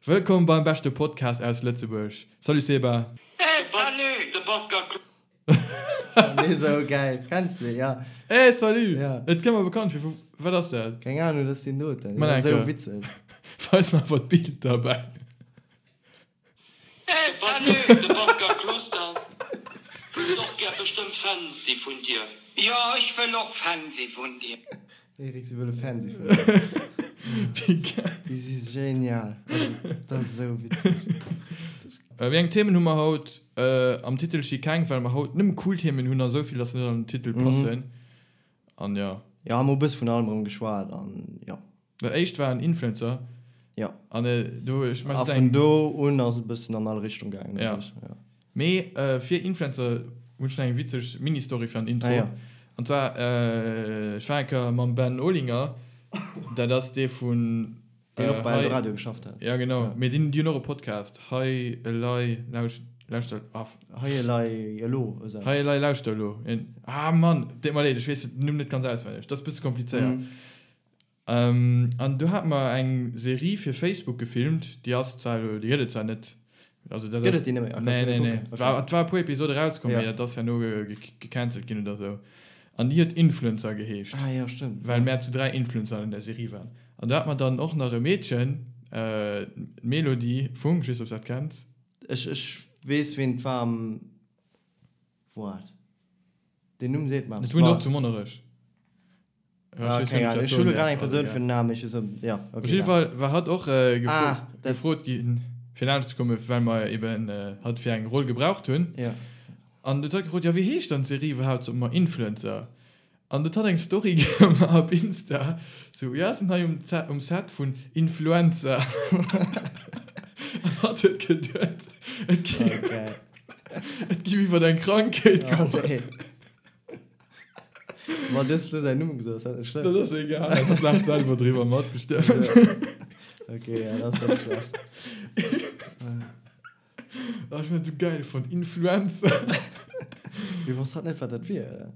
Wëllkomm beim beschte Podcast aus Lëtzebuerg. Salut Seba. Hey salut! De Pascal Nee sou geil, kenns de ja. Hey salut! Ja. Et kënnt mer bekannt vir, wat ass dat? Keng Ahnung, dat ass deen doten. Mann Sou enke. witzeg. Weis mer awer d'Bild derbäi. Hey salut! De Pascal Closter wëllt och gär bestëmmt Fan si vun dir. Jo, ech wëll och Fan si vun dir. Eric, si wëlle Fan si vun dir. Wéi geil. Déi si genial. Also, dat ass esou witzeg. Wéi eng Themen hu mer haut? Am Titel sti keng, well mer haut nëmme cool Themen hunn a sou vill, dass se net an den Titel passen. An jo. Jo, hu mer e bësse vun allem erëm geschwat an jo. Dat éischt war en Influencer. Jo. An do, ech mengen, A vun do un ass et e bëssen an all Richtung gaangen u sech, jo. Mee fir Influencer hunn ech nach eng witzeg Mini-Story fir an den Intro. Ah jo. An zwar, ech war eng Kéier mam Ben Olinger, dat ass dee vun. Deen och bei Eldoradio geschafft hat. Ja genau, mee deen, déi hunn och e Podcast, Hei Elei Lauschter, ah. Hei Elei Elo, esou eppes. Hei Elei Lauschter Elo. Ah Mann, deet mer leed, ech weess den Numm net ganz auswenneg, dat ass e bësse komplizéiert. An do hate mer eng Serie fir Facebook gefilmt, déi ass zwar elo, déi gëtt et zwar net, also dat ass. Gëtt et déi net méi? Ah, Nee, kanns du nee, net nee. kucken? War, et war e puer Episode erauskomm, Ja. mee dat ass herno gecancelt ginn oder esou. An déi huet Influencer geheescht. Ah jo, stëmmt. Well mär zu 3 Influencer an der Serie waren. An do hat mer dann och nach e Meedchen, d'Melody Funk, ech weess net, ob s dat kenns. Ech, ech weess, ween et war am, Waart, deen Numm seet mer Et eppes. wunnt och zu Monnerech. Ah, keng Ahnung. Ech hu lo grad eng Persoun fir den Namen, ech weess net, jo, Op okay, jidde ja. Fall war hatt och Ah, dat. gefrot ginn, fir laanscht ze kommen, well mer eben hatt fir eng Roll gebraucht hunn. Ja. An du huet hatt gefrot, jo, wéi heescht dann d'Serie iwwerhaapt? Sot mer, Influencer. An du huet hatt eng Story gemaach op Insta, sou, jo, sinn hei um um Set vun Influenza. An hatt huet geduet, et gi Oh, geil. et giff iwwert eng Krankheet Oh, goen. nee. Ma du hues lo säin Numm gesot, ass dat net schlëmm? Dat ass egal, hatt laacht selwer driwwer mat bestëmmt. Ok, ja, dat ass net schlecht. Oh, ech hunn dat esou gäil fonnt, Influencer. Mee wosst hatt net, wat dat wier, oder?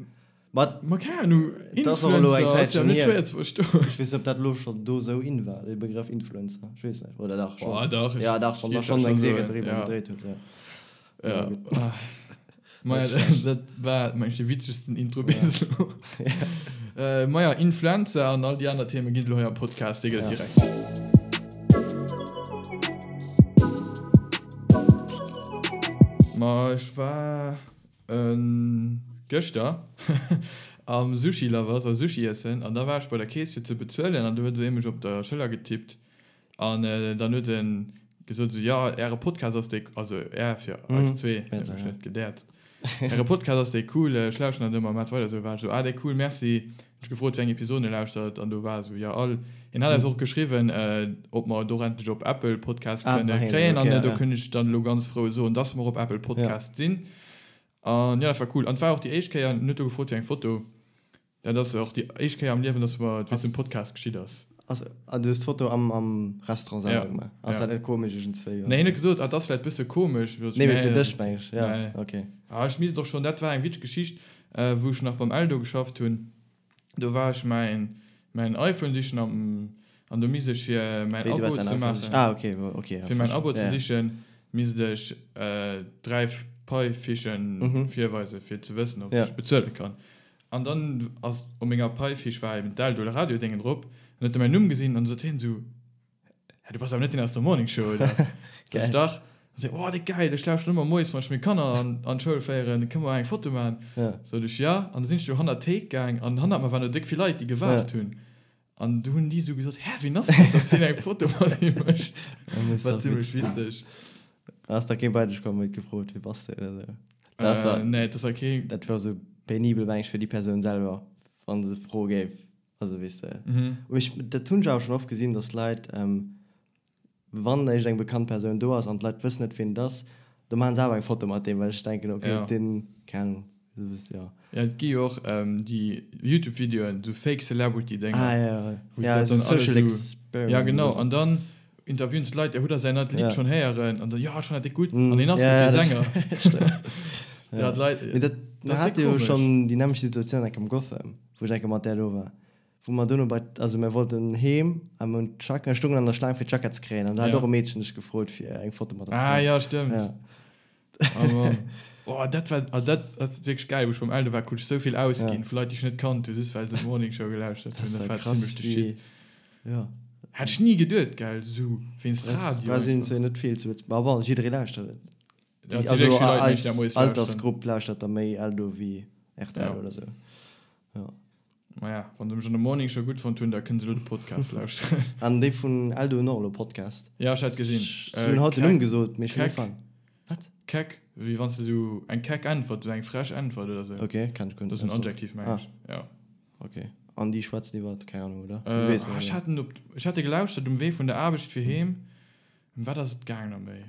Ma Ma keng Ahnung, dat ass och elo eng Influencer ass jo Zäitchen net hier. schwéier ze verstoen. Ech weess net, ob dat elo schonn do esou in war, dee Begrëff Influencer. Ech weess net. Oder dach, schonn. Oh, dach, ech Ja, dach, wann da géif dat schonn eng scho Serie soen, driwwer ja. gedréit huet, ja. Ja. Maja, dat war meng ech de witzegsten Intro bis elo. Maja, Influenza an all déi aner Themen ginn et elo hei am Podcast, dee gëtt et direkt. Ma ech war gëschter am Sushi Lovers a Sushi iessen an da war ech bei der Kees fir ze bezuelen an du huet esou ee mech op der Schëller getippt An dann huet en gesot esou, jo, äre Podcast ass déi, also är fir eis zwee, huet mech net gedäerzt, äre Podcast ass déi cool, ech lauschteren dat ëmmer, maacht weider esou. War ech esou, ah, déi cool, merci. Hunn ech gefrot, wéi eng Episoden e lauschtert an do war esou, jo, all. Hien hat eis och geschriwwen, ob mer et och endlech op Apple Podcast kënne kréien an do kënn ech dann elo ganz frou soen, dass mer op Apple Podcast sinn. An jo, dat war cool. An et war och déi éischt Kéier, en huet do gefrot fir eng Foto. Dat ass och déi éischt Kéier am Liewen, dass mer et wéinst dem Podcast geschitt ass. Ass, ah, du hues d'Foto am, am Restaurant selwer Ja, gemaach? Ass ja. dat net komesch iergendzwéi? Nee, hien huet gesot, ah, dat ass vläicht bësse komesch. Nee, mee fir dech, meng ech. Ja, Nee. okay. Ah, ech misst och schonn, dat war eng witzeg Geschicht, wou ech nach beim Eldo geschafft hunn. Do war ech mäin, mäin iPhone sichen am, an do misst ech fir mäin Wéi, du Abo waars däin ze iPhone maachen. sichen? Ah, okay, okay, ja, Fir mäin verstinn. Abo ze Ja, ja. sichen, misst ech 3 Pai-Fichen virweisen, fir ze wëssen, ob Ja. ech bezuele kann. An dann ass op menger Paifiche war eben d'Eldo oder Radiodéngen drop. An huet e mäin Numm gesinn an sot hien esou, Hä, du bass awer net deen aus der Morning Show, oder? Sot ech, Dach. An se, Oh, déi geil, ech lauschteren ëmmer moies, wann ech meng Kanner an an d'Schoul féieren, kënne mer eng Foto maachen? Ja. Sot ech, Ja. An da sinn ech do hannert d'Théik gaang an hannert mer waren do déck vill Leit, déi gewaart hunn. An du hunn déi esou gesot, Hä, wien ass dat, dass deen eng Foto mat him mécht? War zimmlech witzeg. Ass da kee bei dech komm, huet gefrot, wie bass de oder esou? Dat ass da, Nee, dat ass da kee. dat wär esou penibel, meng ech, fir déi Persoun selwer, wa se froe géif. Also, weess de. Mee ech, dat hunn ech awer schonn oft gesinn, dass Leit, wann éischt eng bekannt Persoun do ass an d'Leit wëssen net, wien et ass, da maachen se awer eng Foto mat deem, well ech denken, okay, Ja. deen, keng Ahnung, esou wëss, ja. Ja, et gi jo och déi Youtube-Videoen, esou Fake Celebrity-Dénger. Ah, ja, ja. Wou se Ja, dat esou dann alle Social esou. Experiment Ja, genau. oder esou. An dann interviewen se d'Leit, ja, hutt der säin neit Lidd Ja. schonn héieren? An dann, jo, ech fannen dat déck gutt. Mm, An hien ass ja, guer ja, kee dat Sänger. stimmt. Ja, d'Leit, Mee dat, dat mer ass déck hate jo komesch. schonn déi nämmlecht Situatioun enk am Gotham, wou ech enke mat där do war. Wou mer dono bei, also mir wollten heem a mir hunn d'Jacke, stoungen an der Schlaang fir d'Jackett ze kréien an da hat och e Meedchen dech gefrot fir eng Foto mat der ze Ah maachen. jo, stëmmt. Ja. Oh Mann. Oh, dat war, ah, dat ass wierklech gäil. Wou ech beim Eldo war, krut ech sou vill ausginn Ja. vu Leit, déi ech net kannt hunn, just well se d'Morning Show gelauschtert Dat hunn. ass Dat ja war krass, zimmlech de wéi, Shit. ja. Hätt ech ni geduet, gell, sou wéinst Brauchs, Radio brauchs een einfach. zwar net vill zu Lëtzebuerg, ma bon, jidderee lauschtert et. Ja, Déi, et si also wierklech vill Leit, mengen ech, eis déi dat moies lauschteren. Altersgrupp lauschtert da méi Eldo wéi rtl Ja. oder sou. Ja. Maja, wann se mech an der Morning Show gutt fonnt hunn, da kënne se elo de Podcast lauschteren. An déi vun Eldo hunn och elo Podcast. Ja, ech hat gesinn. Si hunn haut den Numm gesot, mee ech hunn ugefaang. Wat? Keck, wéi wann s de sou eng keck Äntwert, sou eng frech Äntwert oder sou. Ok, kenn ech guer net. Dat ass en Adjektiv, meng ech. Ja. Ok. An déi schwätzen iwwer, keng Ahnung, oder? Du weess net, Ech oder? hat en op, ech hat e gelauschtert um Wee vun der Aarbecht fir heem. Ëm wat ass et gaang nach méi?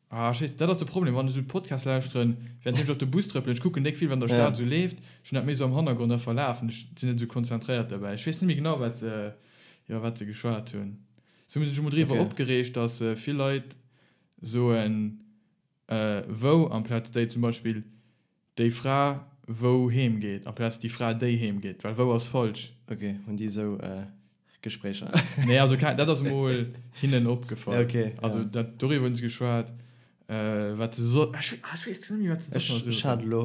Ah, ech weess, dat ass de Problem, wann ech esou Podcast lauschteren, während ech op de Bus trëppelen, ech kucken déck vill, wat an der Stad esou leeft, ech hunn dat méi esou am Hannergrond einfach lafen, ech sinn net esou konzentréiert derbäi. Ech weess net méi genau, wat se, iwwer wat se geschwat hunn. Se hu sech emol driwwer opgereegt, dass vill Leit soen, wou amplaz déi, zum Beispill Déi Fra wou heem geet, amplaz déi Fra déi heem geet, well wou ass falsch. Ok, hunn déi esou Gespréicher? Nee, also dat ass emol hinnen opgefall. Ok, ja. Also dat, doriwwer hunn se geschwat, wat se so, ech, ah, ech weess net méi, wat se soss nach Ech, ech hat elo,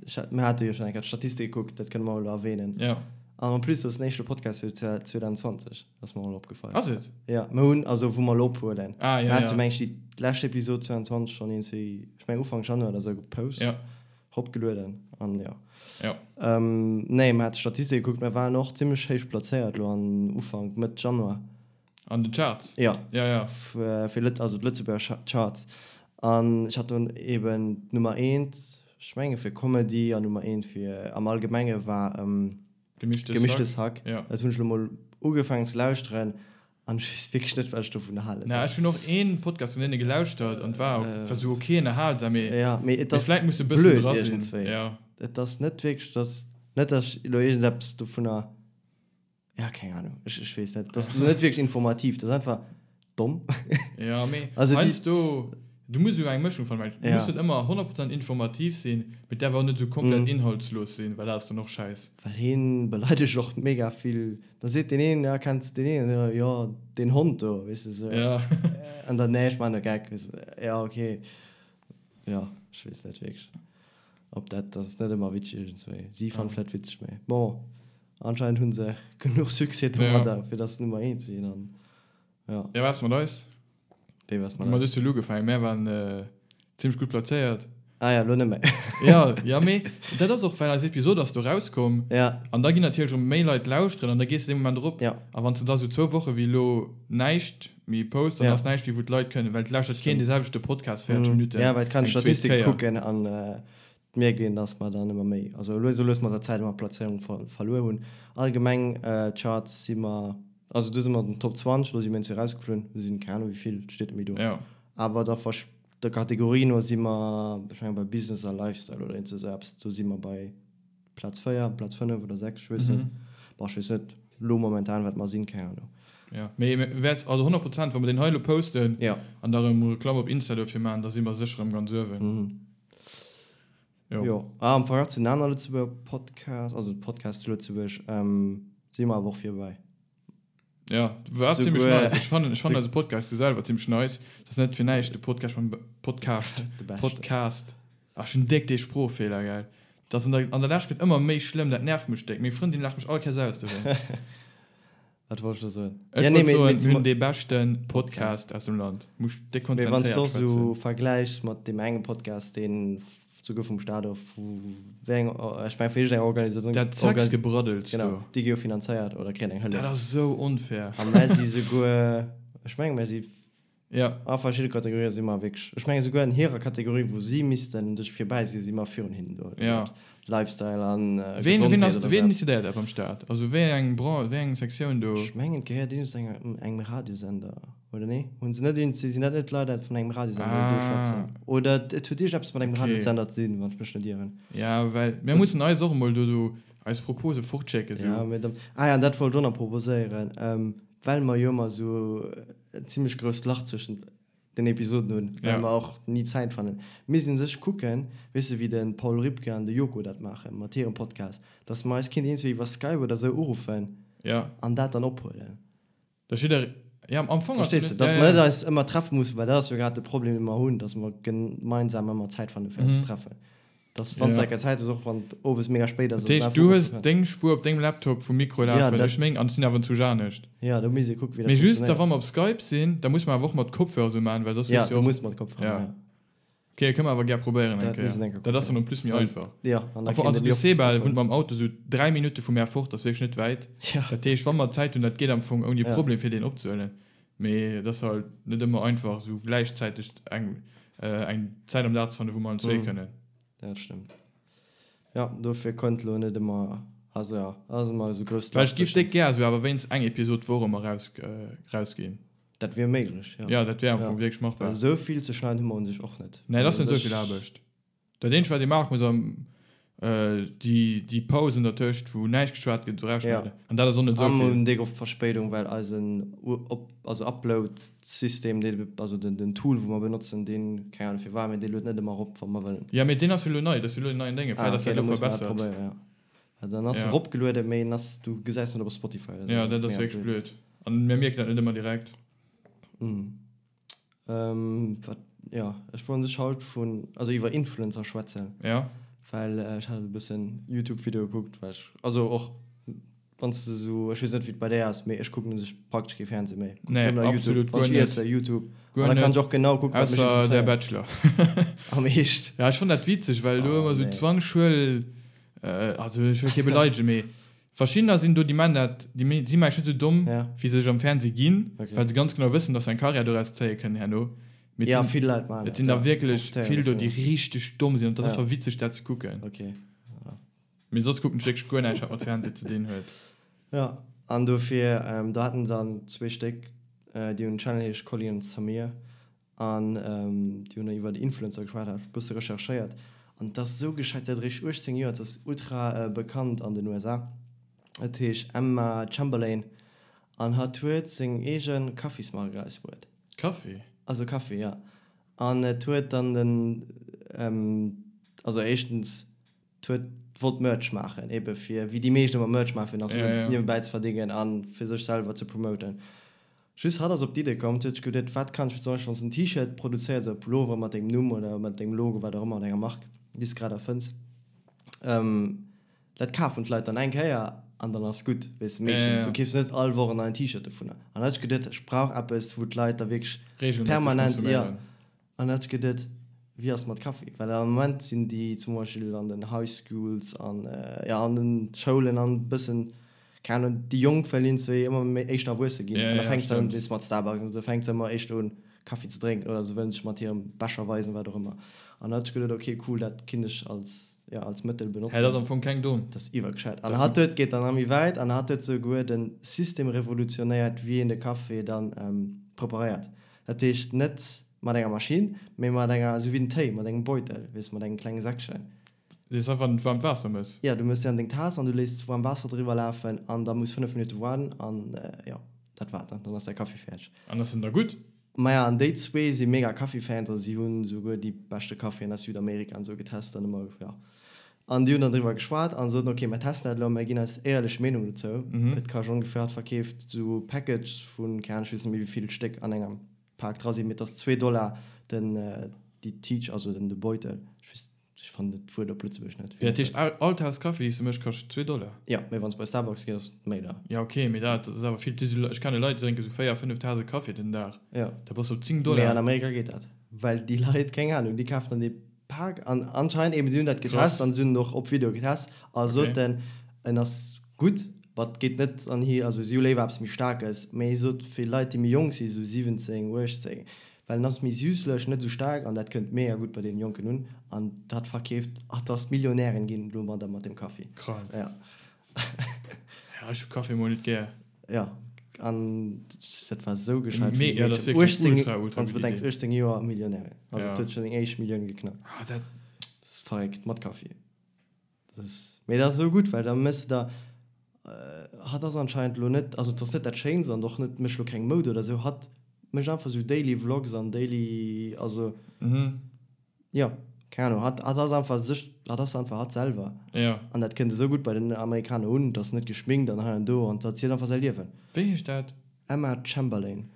ech hat, mir hate jo schonn eng Kéier d'Statistik gekuckt, dat kënne mer elo erwähnen. Ja. An en plus, dat ass den éischte Podcast fir 2020. Ass mer och opgefall. Ass et? Ja, mer hunn, also wou mer elo ophuelen. Ah, ja, Mer hate ja. meng ech déi lescht Episod 22 schonn iergendwéi, ech meng Ufank Januar oder sou gepost, Ja. eropgelueden an jo. Ja. Ähm, nee, mer hate Statistike gekuckt, mer waren och zimmlech héich plazéiert elo an Ufank, Mëtt Januar. An den Charts? Ja. Ja, ja. Fir Lët, also d'Lëtzebuerger Charts. An ech hat dunn eben d'Nummer eent, ech menge fir Comedy an Nummer eent fir am Allgemenge war, Gemischtes, Gemischtes Hack. Ja. Dat hunn ech lo mol ugefaangen ze lauschteren an ech weess wierklech net, wat ech dovun hale Na, soll. ech hunn och een Podcast vun deene gelauschtert an war war sou ok ënnerhalsam, mee Ja, mee et mee ass vläit muss de e bëssen blöd dra sinn. iergendswéi. Ja. Et ass net wierklech, et ass net, dass ech elo iergendeppes dovunner, ja, keng Ahnung, ech, ech weess net. Et ass net wierklech informativ, et ass einfach domm. Ja, mee Also déi. heiansdo, du muss esou eng Mëschung fannen, well du Ja. muss net ëmmer 100% informativ sinn, mee et däerf och net esou komplett Mhm. inhaltslos sinn, well dat ass dann och schäiss. Well hien beleidegt och mega vill. Da seet deen een, ja, kenns de deen een? Jo, deen Hond do, weess de sou. Ja. An dann, nee, ech man e Geck, weess de. Ja, okay. Ja, ech weess net wierklech, ob dat, dat ass net ëmmer witzeg iergendswéi. Si fannen vläit witzeg, mee bon, anscheinend hu se genuch Succès domadder, fir dass se Nummer eent sinn an. Ja. Ja, waars mat eis? Wéi waars mat eis? Mat eis hues du elo ugefaangen. Mär waren zimmlech gutt plazéiert. Ah ja, elo net méi. Ja, ja, mee dat ass och, well eis Episod ass do rauskomm. Ja. An da ginn natierlech erëm méi Leit lauschteren an da gees de dee Moment erop. Ja. A wann s de da sou zwou Woche wéi elo näischt méi posts, dann Ja. ass näischt méi, wou d'Leit kënnen, well et lauschtert keen Stimmt. dee selwechte Podcast 40 Minutten Ja, well et kann eng zweet Statistike Kéier. kucken an et mierkt een, dass mer dann ëmmer méi, also lues a lues mat der Zäit ëmmer Plazéierung verluer hunn. Allgemeng Charts si mer Also do si mer an den Top 20, do si mir eenzel erausgeflunn, do sinn keng Ahnung wéi vill, et steet net méi do. Ja. Awer der Versch der Kategorie no si mer, ech mengen bei Business a Lifestyle oder iergend esou eppes, do si mer bei Plaz 4, Plaz 5 oder 6, ech weess net. Bon, ech weess net elo momentan wat mer sinn, keng Ahnung. Ja, mee mir wäert, also 100 Prozent, wa mer deen hei elo posten Ja. an da erëm Reklamm op Insta dofir maachen, da si mer sécher erëm ganz uewen. Jo. Jo. Ah, am Verglach zu den aner Lëtzebuerger Podcasts, also Podcasts zu Lëtzebuerg, si mer awer och virbäi. Ja, war ziemlech Souguer- nice. Ech fannen, ech fannen eise Podcast du selwer ziemlech nice. Dat ass net fir näischt de Podcast mam Podcast. De beschten. Podcast. Ach, ech hunn déck dee Sproochfeeler, gell. Dat ass an der, an der Lescht gëtt ëmmer méi schlëmm, dat nervt mech déck. Meng Frëndin laacht mech all Kéiers aus dowéinst. Wat wollt ech da soen? Ech Ja, nee, wollt mee, soen, mee mir zum, hunn dee beschten Podcast aus dem Land. Muss déck mee wann s konzentréiert du och sou schwätzen. vergläichs mat deem engem Podcast, deen souguer vum Staat of vu wéi eng, ech meng vu iergendeng Organisatioun, Dat Organ, Sexgebraddels genau, do. déi gi jo finanzéiert oder kréien eng Dat Hëllef. ass sou onfair. A mär si souguer, ech menge mär si Ja. A verschidde Kategorië si mer wierklech, ech menge souguer an hirer Kategorie, wou si missten sech virbäi sinn, si mer virun hinnen do. Ja. Lifestyle an Ween, ween Gesondheet ass, oder ween sou. decidéiert dat beim Staat? Also wéi eng Bran-, wéi eng Sektioun do? Ech mengen, et gehéiert iergends enger, engem Radiosender, oder nee? Hunn se net iergends, sinn dat net Leit vun engem Radiosender, déi do schwätzen? Ah. Oder et huet iergendeppes mat engem Okay. Radiosender ze dinn, wann ech mech net ieren. Ja, well mir mussen eis och emol do sou eis Propose fortschécken, sou. Ja, mee dann, ah ja, an dat wollt ech och nach proposéieren, well mer jo ëmmer sou en zimmlech grousst Lach zwëschent. Den Episoden hunn, well mer och ni Zäit fannen. Mir sinn u sech kucken, weess de wéi de Paul Ripke an de Joko dat maachen mat hirem Podcast, dass mer eis kinnt iergendwéi iwwer Skype oder sou uruffen an dat dann ophuelen. Dass jidder, jo am Fong ass Verstees de, dass mer net eis ëmmer treffe mussen, well dat ass jo grad de Problem dee mer hunn, dass mer gemeinsam ëmmer Zäit fanne fir eis ze treffen. Dass wann s de eng Kéier Zäit hues, och wann et owes mega spéit ass, Dat heescht, du hues deng Spuer op dengem Laptop vum Mikro lafen, ech meng, an ech sinn awer zu anescht. Jo, do misst ee kucken, wéi dat funktionéiert. Mee just da wa mer op Skype sinn, da musse mer awer och mat Kopfhörer esou maachen, well soss hues du jo och. Jo, du muss mat Kopfhörer maachen, jo. Ok, kënne mer awer gär probéieren eng Kéier. Dat misst een eng Kéier kucken. Dat ass dann en plus méi einfach. Jo, an da kéint een jo. Also de Seba wunnt mam Auto esou 3 Minutte vu mär fort, ass wierklech net wäit. Dat heescht, wa mer Zäit hunn, dat geet am Fong ouni Problem fir deen opzehuelen. Mee et ass halt net ëmmer einfach esou gläichzäiteg eng eng Zäit am Dag ze fannen, wou mer allen zwee kënnen. Dat stëmmt. Jo, dofir konnt elo net ëmmer, also jo, ass ëmmer esou grousst Well ech giff déck gär esou awer wéinst eng Episod d'Woch ëmmer raus rausginn. Dat wier méiglech, jo. Jo, dat wier am Fong wierklech machbar. Well esou vill ze schneiden hu mer un sech och net. Nee, et ass net esou vill Aarbecht. Dat eenzegt wat ee maache muss am déi déi Pausen dertëscht wou näischt geschwat gëtt erausschneiden an dat ass och net esou vill. A mer hunn déck oft Verspéidung well eisen op also Upload System dee also den den Tool wou mer benotzen deen keng Ahnung firwat mee dee luet net ëmmer erop wa mer wëllen. Jo mee deen ass jo elo nei, dat ass jo elo en neien Dénge, vläit ass dat elo verbessert. Jo well dann ass eropgelueden mee en ass du gesäis net op Spotify oder sou. Jo dat ass wierklech blöd an mir mierken dat net ëmmer direkt. Ähm, wat, ja, ech wollt sech haut vun, also iwwer Influencer schwätzen. Ja. Well ech hat e bëssen Youtube-Videoe gekuckt, well ech, also och wann s de sou, ech weess net wéi et bei där ass, mee ech kucken u sech praktesch kee Fernseh méi. Kucken Nee, nëmmen nach YouTube. absolut Wann guer ech net. iesse, YouTube. Guer An da kann net. ech och genau kucken, wat mech Ausser der interesséiert. Bachelor. Am Eescht? Ja, ech fann dat witzeg, well do Oh, ëmmer sou nee. 20 Schuel, also ech wëll kee beleidegen, mee Verschiddener sinn do, déi man dat, déi si mengen net sou domm, wéi se sech am Fernseh ginn, well se ganz genau wëssen, dass se eng Karriär doraus zéie kënnen herno. Mee et sinn, et sinn der wierklech vill do, déi richteg domm sinn an et ass einfach witzeg, dat ze kucken. Mee soss kucken ech wierklech guer näischt, wat mat Fernseh ze dinn huet. Jo, an dofir, do haten se dann zwee Stéck, déi hunn en Channel, heescht Colly and Samir, An déi hunn iwwer Influencer geschwat, hat e bësse recherchéiert an et ass esou gescheit, si hat eréischt 18 Joer, et ass ultra bekannt an den USA. Et heescht Emma Chamberlain an hatt huet seng eege Kaffismark erausbruet. Kaffi? Also Kaffi, ja. An et huet dann den, also éischtens, et huet wollt Merch maachen, ebe fir, wéi déi meescht ëmmer Merch maachen, fir nach Suen niewebäi ze verdéngen a fir sech selwer ze promoten. Just hatt ass op d'Idee komm, huet sech geduet, wat kann ech fir zum Beispill wann s de en T-Shirt produzéiers oder e Pullover mat dengem Numm oder mat dengem Logo, wat och ëmmer, oder enger Mark, déi s de grad erfënns, dat kafen d'Leit dann eng Kéier an dann ass gutt, weess de, meeschtens. Du keefs net all Woch en neien T-Shirt dovunner. An da huet sech geduet, ech brauch eppes, wou d'Leit da wierklech Regelméisseg permanent, jo. konsuméieren. An dat gëtt et, wéi ass mat Kaffi? Well am Moment sinn déi zum Beispill an den High Schools an, jo, an den Schoulen an e bëssen, keng Ahnung, déi Jonk well iergendzwéi ëmmer méi éischter erwuesse ginn. Ja, An da ja, fänkt se un, stimmt. weess mat Starbucks an esou, fänkt se ëmmer éischter un Kaffi ze drénken oder se wëllen sech mat hirem Becher weisen, wat och ëmmer. An da hat ech geduet, ok cool, dat kinnt ech als, jo, als Mëttel Hä, dat benotzen. ass am Fong keng domm. Dat ass iwwergescheit. An hatt huet, geet dann nach méi wäit an hatt huet souguer de System revolutionéiert, wéi een de Café dann preparéiert. Dat heescht net mat enger Maschinn, mee mat enger, esou wéi den Téi, mat engem Beutel, weess, mat engem klenge Säckchen. Dee s einfach an d'waarmt Waasser mëss? Jo, du mëss déi an deng Taass an du léiss waarm Waasser driwwer lafen an da muss 5 Minutte waarden an jo, dat war et dann. Dann ass däi Kaffi fäerdeg. An ass en da gutt? Maja, an déi zwee si mega Kaffi-Fans, also si hunn esouguer déi beschte Kaffien aus Südamerika an esou getest an ëmmer, jo. An déi hunn dann driwwer geschwat an soten, ok, mer testen dat elo a mer ginn eis éierlech Meenung dozou. Et kascht ongeféier, hatt verkeeft esou Packages vun, keng Ahnung, ech weess net méi wéi vill Stéck an engem Pak dra sinn, mee et ass zwee Dollar den, déi Tiitch, also den, de Beutel. Ech weess, ech fannen dat Wuert op Lëtzebuergesch net. Wéi, dat heescht all Taass Kaffi, déi s de méchs, kascht zwee Dollar? Jo, mee wann s bei Starbucks gees, ass et méi deier. Jo, ok, mee dat ass awer vill. Ech kenne Leit, déi drénke sou véier, fënnef Taase Kaffi den Dag. Jo. Da bass de op 10 Dollar. Mee an Amerika geet dat, well déi Leit, keng Ahnung, déi kafen dann dee Pak an anscheinend eben si hunn dat getest an si hunn och op Video getest a soten en ass gutt, but geet net an hi, also si hu léiwer eppes méi staarkes, mee sot fir Leit déi méi jonk si sou 17, 18, well en ass méi süsslech, net esou staark an dat kënnt mega gutt bei deenen Jonken un an dat verkeeft, ach dass Millionären ginn domadder mat dem Kaffi. Krank. Ja. Ja, ech hu Kaffi mol net gär. Ja, an dat war sou gescheit vun deem Meedchen. Ja, dat ass wierklech 18, ultra, ultra wann s de gutt bedenks, Idee. 18 Joer Millionärin. Also Ja. et huet schonn seng éischt Millioun geknackt. Ah, dat. Dat ass verréckt, mat Kaffi. Dat ass, mee dat ass sou gutt, well da méchs de der, hatt ass anscheinend elo net, also et ass net dat Schéinst an och net, mécht elo keng Moud oder sou, hatt. mécht einfach sou Daily Vlogs an Daily, also jo, keng Ahnung, hatt hatt ass einfach sech, hatt ass einfach hatt selwer. Jo. An dat kënnt esou gutt bei den Amerikaner un, et ass net geschminkt an hei an do an hatt zielt einfach säi Liewen. Wéi heescht dat? Emma Chamberlain.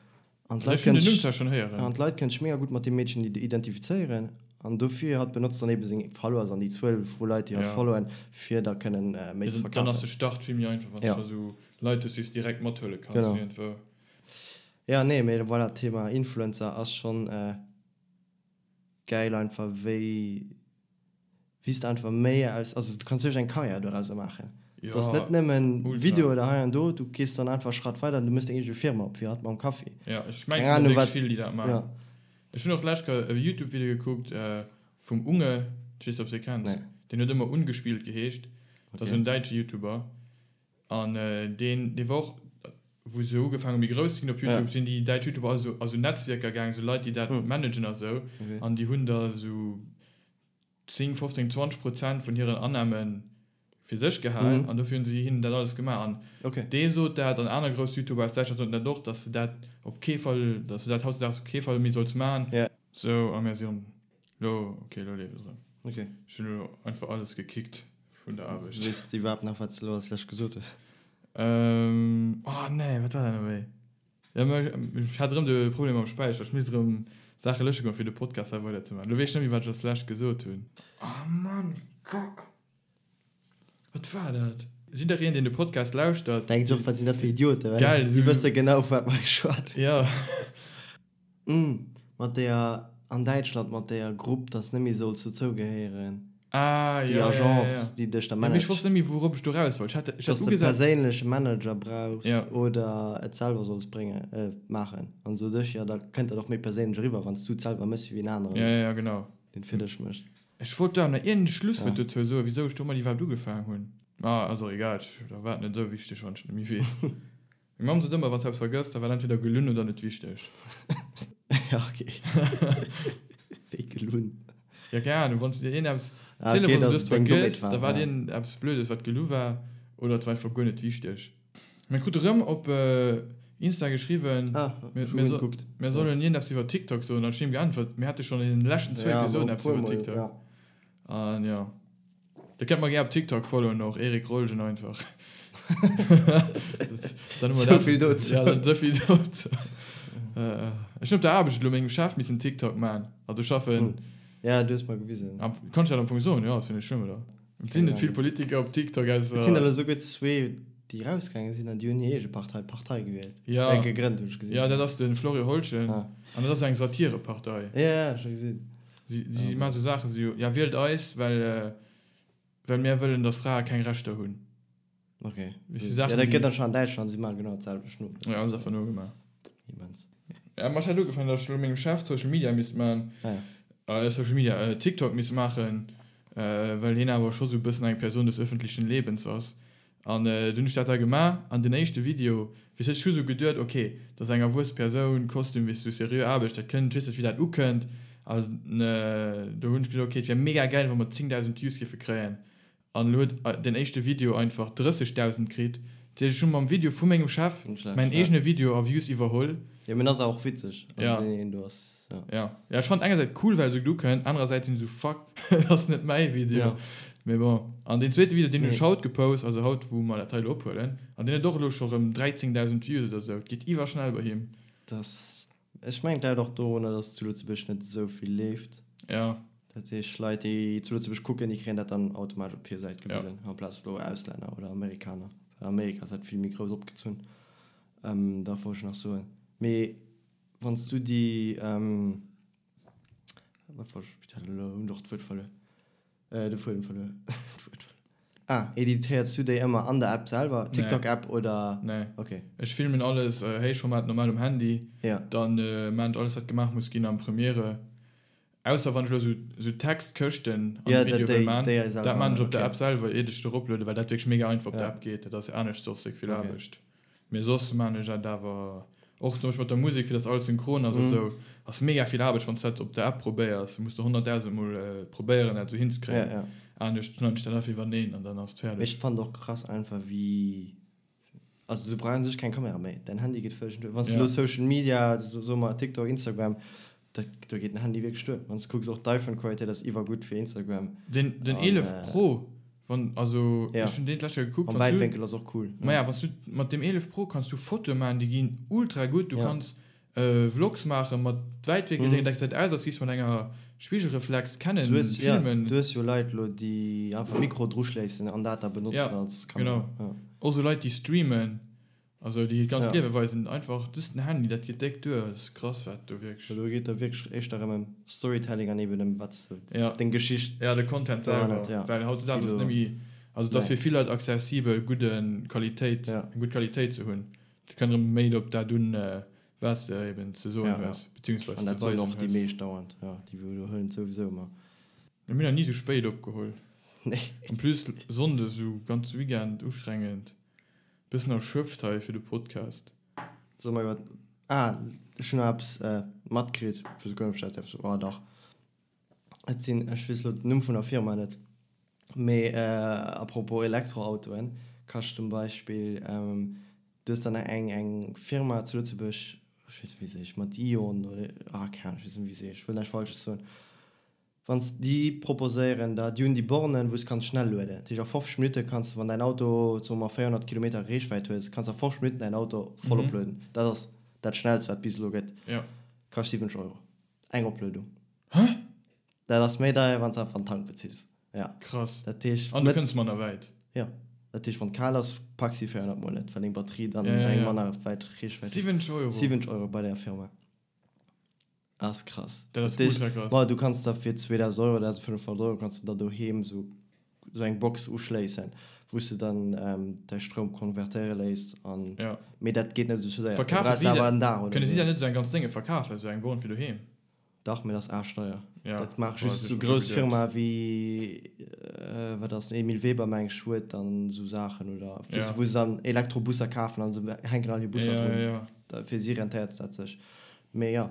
An d'Leit kënnen sech, an d'Leit kënnen sech mega gutt mat deem Meedchen identifizéieren. An dofir, hatt benotzt dann eben seng Followers an déi Zuel vu Leit, déi hatt followen, fir da kënnen méi ze verkafen. Dann ass de Start vill méi einfach, wann s de scho sou Leit hues, déi s de direkt mathuele kanns. Genau. Jo, nee, mee voilà, Thema Influencer ass schonn gäil einfach, wéi. Wéi s de einfach méi aus, also du kanns wierklech eng Karriär dorauser maachen. Et ass net nëmmen Video oder hei an do, du gees dann einfach e Schratt weider an du méchs deng eege Firma op, wéi hatt mam Kaffi. Jo, ech mengen, et sinn wierklech vill, déi dat maachen. Ech hunn och d'lescht Kéier e Youtube-Video gekuckt vum Unge, ech weess net, ob s de e kenns, deen huet ëmmer Ungespillt geheescht, dat ass en däitsche Youtuber an deen, dee war och, wou se ugefaangen hu méi grouss ze ginn op Youtube, sinn déi däitsch Youtuber all esou a sou Netzwierker gaangen, esou Leit, déi dat managen a sou, an déi hunn da esou 10, 15, 20 Prozent vun hiren Annahme fir sech gehal an dofir hunn si hinnen dat alles gemaach. An dee sot dat an aner grouss Youtuber aus Däitschland soten dat och, datt se dat op kee Fall, datt se dat hautdesdaags op kee Fall méi solls maachen. Sou, a mir sinn elo, ok, elo leeft et erëm. Ech hunn elo einfach alles gekickt vun der Aarbecht. Weess de iwwerhaapt nach, wat s de elo als lescht gesot hues? Oh nee, wat war dat elo méi? Jo, mä ech hat erëm de Problem mam Späicher. Ech misst erëm Saache lösche goen, fir de Podcast hei weider ze maachen. Elo weess ech net méi, wat ech als lescht gesot hunn. Oh Mann, fuck! Wat war dat? Jiddereen, deen de Podcast lauschtert. Denkt sech och, wat sinn dat fir Idioten, well Geil, si wësse genau, vu wat mer geschwat hunn. Jo. Umm, mat deeër an Däitschland, mat deeër Grupp, dass net méi solls dozou gehéieren. Ah, Déi ja, ja, ja, Agence, ja. déi dech da Ja, mee ech managt. wosst net méi, wourop ech do raus wollt. Ech hat, ech hat Dass de ugesat. perséinleche Manager brauchs Ja. oder et selwer solls bréngen, äh, maachen. An sot ech, jo, da kënnt dat och méi perséinlech eriwwer, wann s du et selwer méchs, wéi en aneren, Ja, ja, ja, genau. deen et fir dech mécht. Ech wollt do awer nach iergend e Schlusswuert dozou soen, wisou ech domat iwwerhaapt ugefaangen hunn. Ah, ass och egal, ech, da war et net esou wichteg, wann ech et net méi weess. Meng Mamm sot ëmmer, wann s de eppes vergëss, da war et entweder gelunn oder net wichteg. Ja, ok. Wéi gelunn? Ja, keng Ahnung, wann s de dir iergendeppes Ah, ok, ziele wolls an du dass hues et deng Dommheet vergëss, war, da war et ja. iergendeppes Blödes, wat gelu war, oder et war einfach guer net wichteg. Mir krute rëm op Insta geschriwwen, Ah, mir, ech hu mir, guer so, net gekuckt. mir sollen iergendeppes iwwer TikTok soen, an ech hunn him geäntwert, mir hate schonn an den leschten zwou Ja, Episoden e eppes iwwer puermol, TikTok. ja. An jo. Dir kennt mer gär op TikTok followen och, Eric Rolgen einfach. Dann hu mer dat. Souvill dozou. Ja, dann souvill dozou. Ech hunn op der Aarbecht elo mengem Chef missen TikTok man. Also ech schaffen. Ja, du hues mer gewisen. Am, kann ech dat am Fong soen? Jo, ass jo net schlëmm, oder? Et sinn net vill Politiker op TikTok, ausser. Et sinn der elo souguer zwee, déi rausgaange sinn an déi hunn hir eege Partei, Partei gewielt. Ja. Äh, gegrënnt, hunn ech gesinn. Ja, dat ass de Florio Holchen. Ah. An dat ass eng Satirepartei. Ja, ja, ech hu gesinn. Si, si maachen esou Saachen, esou, ja, wielt eis, well, well mär wëllen, datt Frae keng Rechter hunn. Ok. Weess du, Ja, Saachen, dat déi. gëtt dann schonn an Däitschland, si maachen genau dat selwecht no. Ja, hunn se einfach nogemaach. Immens. Ja, ma ech hat ugefaangen, datt ech elo mengem Chef Social Media misst maachen, Ah ja. Social Media, TikTok misst maachen, well hien awer scho sou e bëssen eng Person des öffentlichen Lebens ass. An dunn hunn ech dat da gemaach an den éischte Video, weess ech hu sou geduet, ok, dat ass eng erwuesse Persoun, Kostüm, weess du, seriö Aarbecht, dat kënnt, weess net wéi dat ukënnt. An do hunn ech geduet, ok, et wär mega gäil, wa mer 10.000 Views géife kréien. An elo huet den éischte Video einfach 30.000 kritt. Dat heescht, ech hu mam Video vu mengem Chef mäin eegene Video a Views iwwerholl. Jo, mee en ass awer och witzeg, also deen een do ass. Ja. Ja, ja ech fand engersäits cool well se gutt ukënnt, anerersäits sinn ech esou fuck, dat ass net mäi Video. Ja. Mee bon. An deen zweete Video, deen hunn Nee. ech haut gepost, also haut wou mer dat hei elo ophuelen, an deen huet och elo scho rëm 13.000 Views oder esou. Et geet iwwerschnell bei him. Das, ech mengen et läit och dorunner, dass zu Lëtzebuerg net esou vill leeft. Ja. Dat heescht Leit déi zu Lëtzebuerg kucken, déi kréien dat dann automatesch op hir Säit Ja. gewisen, amplaz elo Auslänner oder Amerikaner. Well Amerika ass dat vill méi grouss opgezunn. Ähm, dat wollt ech nach soen. Mee Wann s du déi, wat wollt ech, elo hunn ech och d'Wuert verluer, de Fuedem verluer, d'Wuert verluer. Ah, editéiers du déi ëmmer an der App selwer, TikTok-App oder? Nee. Ok. Ech filmen alles, Héichformat normal um Handy, Ja. dann maan ech alles wat gemaach muss ginn am Premiere. Ausser wann ech elo sou Textkëschten an Ja, de Video dat wëll déi, maan, déi hei selwer dat maan ech op der okay. App selwer iert ech et eroplueden, well dat wierklech mega einfach op der Ja. App geet. Dat ass anescht soss déck vill Okay. Aarbecht. Mee soss maan ech dat awer och zum Beispill mat der Musek, fir dass alles synchron ass a Mhm. sou, ass mega vill Aarbecht wann s dat op der App probéiers. Muss de 100.000 mol probéieren dat sou Ja, hinzekréien. ja. Anescht schneiden ech dat einfach iwwerneen an dann ass et Mee fäerdeg. ech fannen och krass einfach wéi. Also du brauchs u sech keng Kamera méi, däin Handy geet vëlleg duer. Wann s de elo Social Media, soe mer TikTok, Instagram, dat, do geet den Handy wierklech duer. Wann s de kucks, och d'iPhone-Qualitéit ass iwwergutt fir Instagram. Den, den 11 Pro, wann, also ech hunn deen d'lescht Kéier gekuckt, wann s du. Am Wäitwénkel ass och cool. Maja, wann s du mat dem 11 Pro kanns du Fotoe maachen, déi ginn ultra gutt. Du kanns Vlogs maachen mat Wäitwénkel, deen gesäit aus als giffs mat enger Spigelreflex kennen filmen. Du hues jo Leit lo déi einfach Mikro druschléissen an dat da benotzen als Kamera. Genau, och sou Leit déi streamen, also déi hiert ganzt Liewe weisen, einfach just den Handy, dat geet déck duer, dat ass krass wat do wierklech. Do geet da wierklech éischter ëm Storytelling an eben ëm wat s de, deng Geschicht. Jo, de Content selwer, well hautzedags ass et net méi, also et ass fir vill Leit accessibel gudde Qualitéit, eng gutt Qualitéit ze hunn. Et kënnt erëm méi op dat un, wat s de eben ze soen hues, beziehungsweise ze weisen hues. An dat soen och déi meescht dauernd, jo, déi widderhuelen et souwisou ëmmer. Mir hunn nach ni sou spéit opgeholl. Nee. En plus Sonndes sou ganz Weekend ustrengend. Bëssen erschöpft hei fir de Podcast. Solle mer iwwer, ah, ech hunn nach eppes matkritt, ech weess guer net, ob ech dat däerf soen, oh dach. Et sinn, ech weess elo den Numm vun der Firma net, mee à propos Elektroautoen, kascht zum Beispill, du hues dann eng eng Firma zu Lëtzebuerg, ech weess net wéi se heescht, mat Ion oder, ah keng Ahnung, ech weess net wéi se heescht, ech wëll näischt Falsches soen, wann s déi proposéieren der, déi hunn déi Bornen, wou s kanns schnell lueden, dat heescht a 50 Minutte kanns de, wann däin Auto, soe mer 400 Kilometer Reechwäit hues, kanns a 50 Minutten däin Auto voll oplueden. Dat ass dat schnellst wat bis elo gëtt, kascht 70 Euro. Eng Opluedung. Hä? Dat ass méi deier, wann s einfach den Tank bezills. Ja. Krass. Dat heescht. An du kënns manner wäit. Jo. Dat heescht, wann et kal ass, packs déi 400 mol net, well deng Batterie dann eng manner wäit Reechwäit huet. 70 Euro? 70 Euro bei där Firma. Ass krass. Dat ass ultra krass. Bon, du kanns der fir 2.000 Euro, 1.500 Euro kanns de der doheem esou esou eng Box uschléissen, wou s de dann däi Stroum konvertéiere léisst an, mee dat geet net esou séier. Du Verkafe brauchs si awer en Dag oder Kënne si esou. dat net esou eng ganz Dénge verkafen, esou eng Born fir doheem? Dach, mee dat ass aarschdeier. Ja, Dat maache just esou grouss Firmae wéi, wat ass, Emile Weber meng ech huet dann esou Saachen oder, weess de, wou se dann Elektrobusser kafen an se hänken all hir Busser drun. Fir si rentéiert dat sech. Mee jo,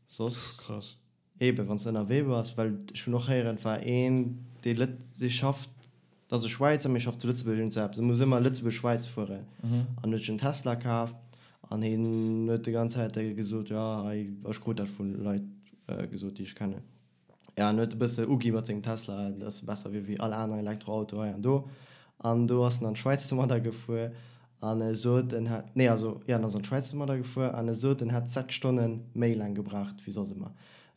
soss. Krass. Eben, wann s de ënnerwee bass, well ech hunn och héieren, et war een, dee Lët, dee schafft, dat ass e Schwäizer, mee schafft zu Lëtzebuerg, iergend sou eppes, e muss ëmmer Lëtzebuerg-Schwäiz fueren an huet sech en Tesla kaf an hien huet déi ganz Zäit gesot, jo, hei, ech krut dat vu Leit gesot, déi ech kennen, jo, en huet e bësse ugi mat sengem Tesla, dass e besser wier wéi all aner Elektroauto hei an do an do ass en an d'Schwäiz domadder gefuer An e sot, en hätt, nee, also, jo, en ass an d'Schwäiz domadder gefuer an e sot, en hätt 6 Stonne méi laang gebraucht wéi soss ëmmer.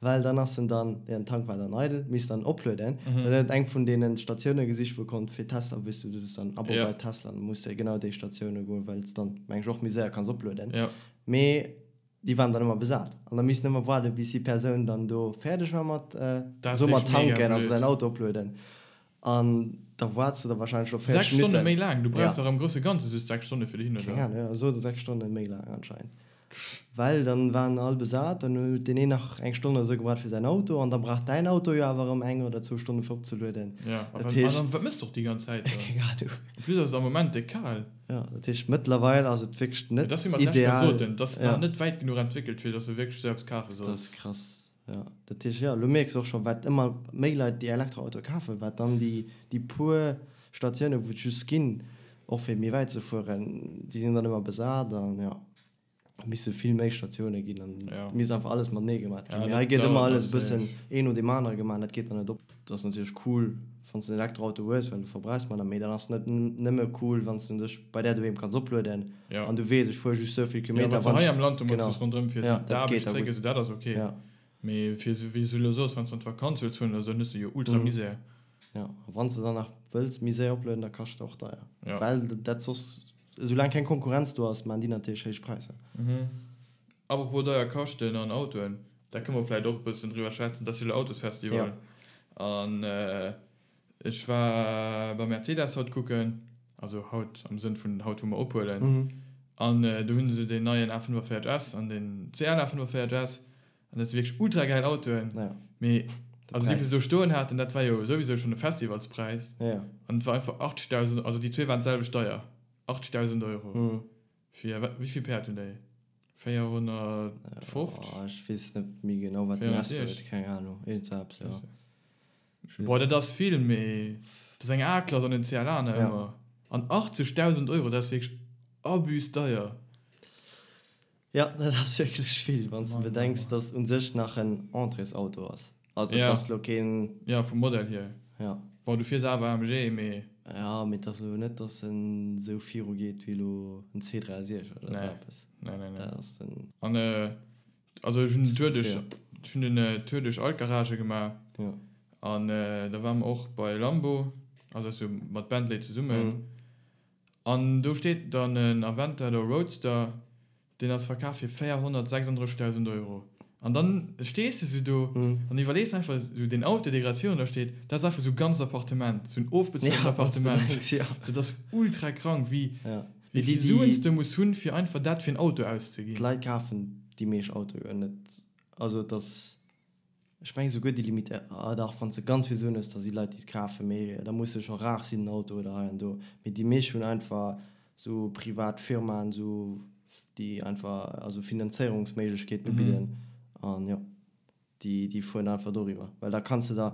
Well dann ass en dann, jo, den Tank war dann eidel, misst dann oplueden. Dann huet en eng vun deene Statioune gesicht, wou e konnt fir Tesla, weess du, du hues dann Abo bei Tesla, dann muss de genau déi Statioune goen, well s dann, meng ech, och méi séier kanns oplueden. Mee déi waren dann ëmmer besat an da missten ëmmer waarden, bis déi Persoun dann do fäerdeg war mat, soe mer, tanken, also däin Auto oplueden. An da waarts de da wahrscheinlech scho 40 6 Stonne Minutten. méi laang? Du brauchs dach am grousse Ganze just 6 Stonne fir dohin, oder? Keng Ahnung, jo, sot e 6 Stonne méi laang anscheinend. Well dann waren all besat, dann huet deen een nach eng Stonn oder sou gebraucht fir säin Auto an da brauch däin Auto jo awer erëm eng oder zwou Stonne fir opzelueden. Jo, a wat, an dann, wat mëss de och déi ganz Zäit da? Keng Ahnung. En plus ass et am Moment déck kal. Jo, dat heescht mëttlerweil ass et wierklech net ideal. Dat ass wéi mer d'lescht Kéier soten, et ass nach net wäit genuch entwéckelt fir dass de wierklech sou eppes kafe solls. Dat ass krass. Jo, dat heescht, jo, elo mierks de och scho wat ëmmer méi Leit déi Elektroautoe kafen, wat dann déi, déi puer Statiounen, wou et just ginn, och fir méi wäit ze fueren, déi sinn dann ëmmer besat an jo, et misse vill méi Statioune ginn an et misst einfach alles matenee gemat ginn. Mee hei gëtt ëmmer alles e bëssen een no deem anere gemaach an dat geet dann net op. Et ass natierlech cool, wann s de en Elektroauto hues, well du verbrauchs manner, mee dann ass et net nëmme cool, wann s de dech bei där doheem kanns oplueden an du weess, ech fuere just esou vill Kilometer. Jo, wann s de hei am Land domat just ronderëm fiers, fir d'Aarbecht zréck, esou, dat ass ok. Mee fir esou, wéi s du elo soos, wann s de an d'Vakanz wëlls fueren oder esou, dann hues de jo ultra Misär. Jo, a wann s de dann nach wëlls méi séier oplueden, da kascht et och deier. Well dat soss, esoulaang keng Konkurrenz do ass, maachen déi natierlech héich Präisser. Apropos deier kaschten an Autoen, da kënne mer vläicht och e bëssen driwwer schwätzen, et ass jo elo Autosfestival an ech war bei Mercedes haut kucken, also haut am Sënn vun haut wou mer ophuelen, an do hunn se deen neien A45 S an den CL A45 S an dat si wierklech ultra gäil Autoen, mee also déi wou se do stoen haten, dat war jo souwisou schonn e Festivalspräis an et war einfach 80.000, also déi zwee waren d'selwecht deier, 80.000 Euro. Fir wat, wéi vill Päerd hunn déi? 450? Oh, ech weess net méi genau, wat den S huet, keng Ahnung, iergend sou eppes, jo. Boah, dat ass vill, mee dat ass eng A-Klass an en CLA nach ëmmer. An 80.000 Euro, dat ass wierklech. Abus deier. Jo, dat ass wierklech vill, wann s de bedenks, dass et u sech nach en Entréesauto ass. Also et ass elo keen. Jo, vum Modell hier. Jo. Bon, du fiers awer AMG, mee. Jo, mee et ass elo net, dass en esou viru geet wéi elo en C63 oder esou eppes. Nee, nee, nee. Dat ass den. An also ech hunn den Tour duerch, ech hunn den Tour duerch all d'Garagë gemaach. Jo. An da ware mer och bei Lambo, also dat ass jo mat Bentley zesummen. An do steet dann en Aventador Roadster, deen ass verkaf fir 436.000 Euro. An dann stees de sou do an iwwerlees einfach sou, deen Auto, dee grad virun der steet, dat ass einfach sou e ganzt Appartement, sou en ofbezuelten Appartement. Dat ass ultra krank, wéi vill Suen s de muss hunn, fir einfach dat fir en Auto auszeginn. D'Leit kafen déi meescht Autoe net, also et ass Ech mengen souguer déi Limite, ah dach, wann s de ganz vill Suen hues, da si Leit déi et kafen, mee da muss se scho rar sinn den Auto oder hei an do. Mee déi meescht hunn einfach sou privat Firmaen, sou déi einfach also Finanzéierungsméiglechkeeten ubidden an jo, déi déi fueren einfach doriwwer, well da kanns de der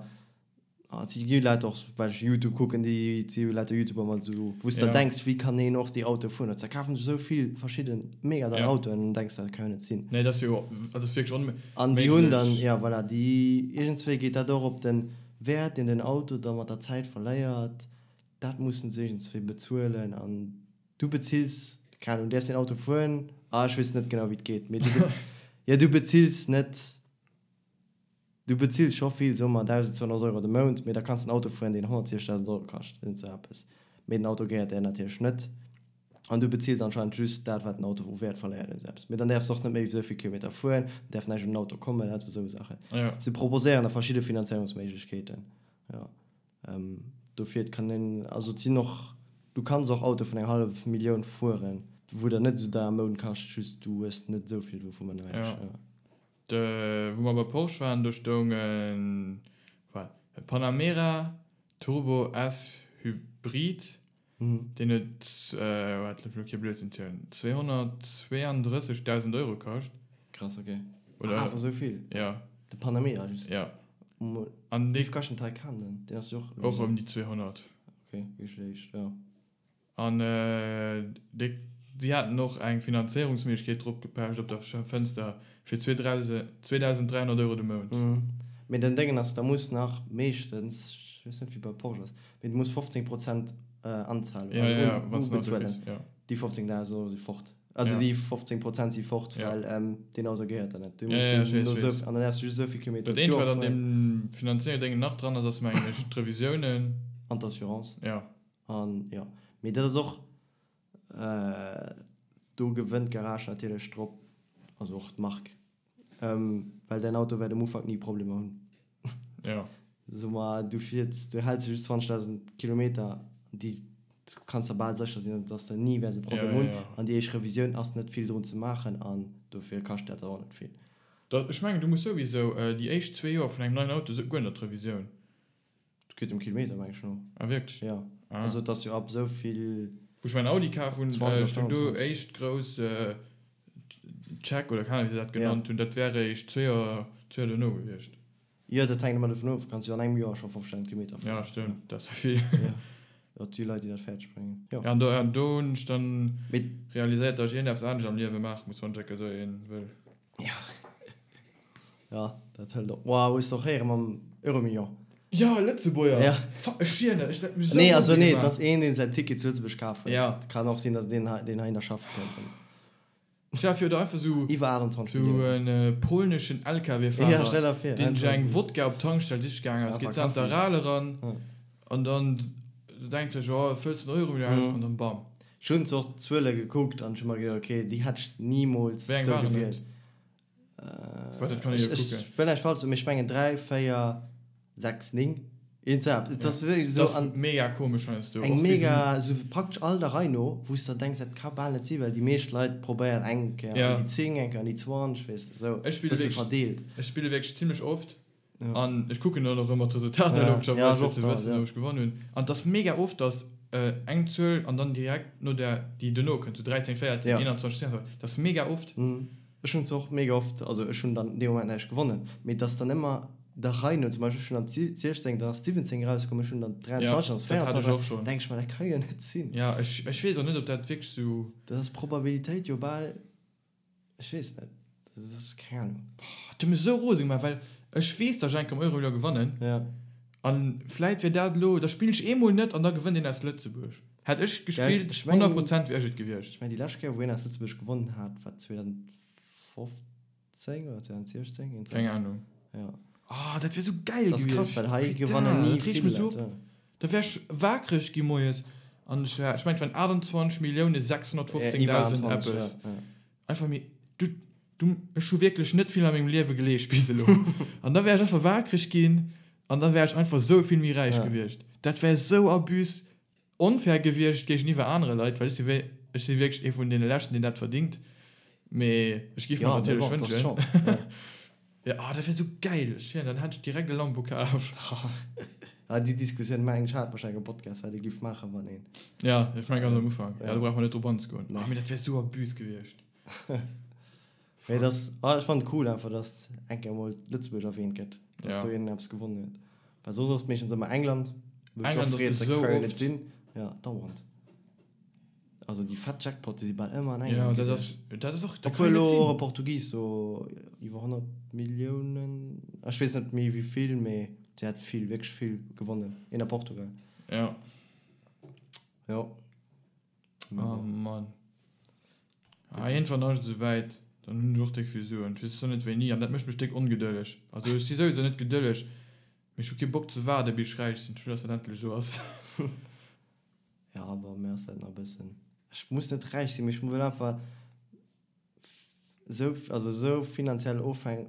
Ah, et si gi Leit och, well ech Youtube kucken, déi et si jo lauter Youtuber mat esou, wou s de der denks, wéi kann een och déi Autoe fueren? Da kafen sech esou vill verschidde mega deier Autoen an dann denks de, dat ka jo net sinn. Nee, dat ass jo, dat ass wierklech onméiglech. An déi hunn dann, ja voilà, déi, iergendswéi geet dat och op den Wäert, deen den Auto da mat der Zäit verléiert, dat mussen se iergendswéi bezuelen an du bezills, keng Ahnung, du däerfs deen Auto fueren, ah ech weess net genau wéi et geet, mee du, jo du bezills net. Du bezills scho vill, soe mer 1.200 Euro de Mount, mee da kanns de en Auto fueren, deen 160.000 Euro kascht, iergend sou eppes. Mee den Auto gehéiert där natierlech net. An du bezills anscheinend just dat, wat den Auto u Wäert verléiert, iergend sou eppes. Mee dann däerfs de och net méi esou vill Kilometer fueren, dann däerf näischt un den Auto kommen, lauter esou Saachen. Se proposéieren da verschidde Finanzéierungsméiglechkeeten, jo. Dofir, et kann een, also et sinn och, du kanns och Autoe vun eng hallef Millioun fueren, wou der net esou deier am Mount kascht, just du hues net esou vill dovun, mengen ech. Wou mer bei Porsche waren, do stoung en Panamera Turbo S Hybrid, deen huet, waart, looss mech elo kee Blödsinn zielen, 232.000 Euro kascht. Krass, ok. Oder? Awer esou vill? Jo. De Panamera just? Jo. An dee. Wéi kascht den Taycan dann? Deen ass jo och. Och ëm déi 200. Ok, wierklech, jo. An déi, si haten och eng Finanzéierungsméiglechkeet drop gepecht op der Fënster fir 2.300 Euro de Mount. Mee den Déngen ass, da muss nach meeschtens, ech weess net wéi bei Porsche ass, mee du muss 15 Prozent Anzahlung, also ubezuelen. Déi 15.000 Euro si fort. Also déi 15 Prozent si fort, well deen Auto gehéiert der net. Du muss jo no esou, an dann däerfs du just esou vill Kilometer Dat eenzegt, wat an deem Finanzéierungsdéngen nach dran ass, ass mengen ech d'Revisiounen. An d'Assurance. Jo. An jo, mee dat ass och, do gewënnt d'Garage natierlech drop, also och d'Mark, well däin Auto wäert um Ufank ni Problemer hunn. Jo. So ma du fiers, du häls just 20.000 Kilometer, déi du kanns der bal sécher sinn, dass de ni wäers e Problem hunn. An déi éischt Revisioun ass net vill drun ze maachen an dofir kascht dat och net vill. Ech mengen, du muss souwisou déi éischt zwee Joer vun engem neien Auto guer net d'Revisioun. Et geet dem Kilometer meng ech no. Ah wierklech? Jo. Ah. Also et ass jo ab esou vill. Wou ech mäin Audi kaf hunn, stoung do éischt grouss Check oder keng Ahnung wéi se dat genannt hunn, dat wär eréischt zwee Joer, zwee Joer dono gewiescht. Jo, dat hänkt ëmmer dovun of, kanns jo an engem Joer scho 5000 Kilometer fueren. Ja stëmmt, dat ass jo vill. Jo, jo et si Leit déi dat fäerdeg bréngen. Jo. Ja an do, an do hunn ech dann realiséiert, datt ech iergendeppes anescht am Liewe maache muss, wann ech enke sou een wëll. Jo. Ja, dat hëlt op. Wow, hues de och héiere mam Euromillion? Jo, Lëtzebuerger! Ja. Fuck, ech schwieren der, ech dat mech esou Nee, also nee, et ass een, deen säin Ticket zu Lëtzebuerg kaf huet. Ja. Et kann och sinn, datt deen hei, deen heihinner schaffe kënnt. Stell der vir, oder einfach sou, Iwwer 28 sou Milliounen. en polneschen Ja, LKW-Fahrer, stell der vir, deen sech einfach eng sou. Wodka op d'Tankstell siche gaangen ass, Einfach geet an Kaffi. d'Aral eran Ja. an dann denkt sech, oh, fëlls den Euromillion aus Mhm. an dann bam. Ech hunn zwar och d'Zuele gekuckt an ech hu mer geduecht, okay, déi hätt ech nimools Wéi eng sou waren et? gewielt. Wat, dat kann ech jo kucken. Ech wëll näischt falsch soen, mee ech mengen 3, 4, 6, 9. Iergend sou eppes. Et ass wierklech Dat esou ass an mega komesch heiansdo. eng Och wéi se. mega, esou praktesch all der Rei no, wou s de denks, dat ka bal net sinn, well déi meescht Leit probéieren eng Kéier Ja. an déi 10, eng Kéier an déi 20, weess de, esou Ech spille bësse wierklech, verdeelt. ech spille wierklech zimlech oft Ja. an ech kucken dann och ëmmer d'Resultater Ja, logescherweis, ja, ech fir och ze da, wëssen, ja. ob ech gewonnen hunn. An et ass mega oft, dass eng Zuel an dann direkt no där, déi duerno kënnt, sou 13, 14, Ja. 21, 22, dat ass mega oft. Ech hunn se och mega oft, also ech hunn dann dee Moment näischt gewonnen, mee et ass dann ëmmer. Der Rei no, zum Beispill ech hunn am 16, dann ass 17 erauskomm, ech hunn dann 23, dann ass 24, denk ech mer, dat ka jo net sinn. Jo, ech, ech weess och net, ob dat wierklech sou. Dat ass d'Probabilitéit jo bal, ech weess net, dat ass, keng Ahnung. Boah, dat huet mech esou rose gemaach, well ech weess, datt ech eng Kéier am Euromillion gewannen. Ja. An vläit wier dat elo, da spillen ech eemol net an da gewënnt een aus Lëtzebuerg. Hätt ech gespillt, 100 Prozent wier ech et gewiescht. Ech mengen, déi lescht Kéier, wou een aus Lëtzebuerg gewonnen hat, war 2015. 10 oder 2016? Eent Keng Ahnung. Ja. Oh, dat wier sou geil Das ass krass, well hei gewannen ni vill Leit. Ja. Da wär ech waakreg gi moies an ech wär, ech mengen et waren 28 Millioune 615.000 eppes. Ja, ja. Einfach méi, du, du, ech hu wierklech net vill a mengem Liewe geleescht bis elo. An da wär ech einfach waakreg ginn an da wär ech einfach sou vill méi räich gewiescht. Dat wär sou abus Onfair gewiescht géigeniwwer anere Leit, well ech si ech si wierklech ee vun deene leschten, deen dat verdingt, mee ech géif mer natierlech wënschen. Jo, oh, dat wär sou gäil! Ech schwéieren, dann hätt ech direkt e Lambo kaf. Ah, déi Diskussioun mengen ech hat wahrscheinlech am Podcast, wat ee géif maachen, wann een. Ja, ech mengen ganz am Ufank. Ja, do brauche mer net drop anzegoen. Oh, mee dat wär sou abus gewiescht. Mee dat ass, ah, ech fannen et cool einfach, dass eng Kéier emol Lëtzebuerg erwähnt gëtt, dass do een eppes gewonnen huet. Well soss ass et meeschtens ëmmer England, wou ech och freet, dat ka jo net sinn. Ja, dauernd. Also déi fett Jackpotte si bal ëmmer an England gewiescht. Ja, dat ass, dat ass och, dat kann jo net sinn. Obwuel elo och e Portugis do iwwer 100 Milliounen, ech weess net méi wéi vill, mee si hat vill, wierklech vill gewonnen, een a Portugal. Ja. Jo. Oh Mann. Ah, iergendwann ass et esouwäit, dann hunn ech och déck vill Suen. Ech weess zwar net wéini, an dat mécht mech déck ongedëlleg. Also ech si souwisou net gedëlleg, mee ech hu kee Bock ze waarde bis ech räich sinn. Ech wëll, dass dat endlech esou ass. Ja, bon, mir ass dat nach e bëssen, ech muss net räich sinn, mee ech wëll einfach esou, also esou finanziell ofhäng,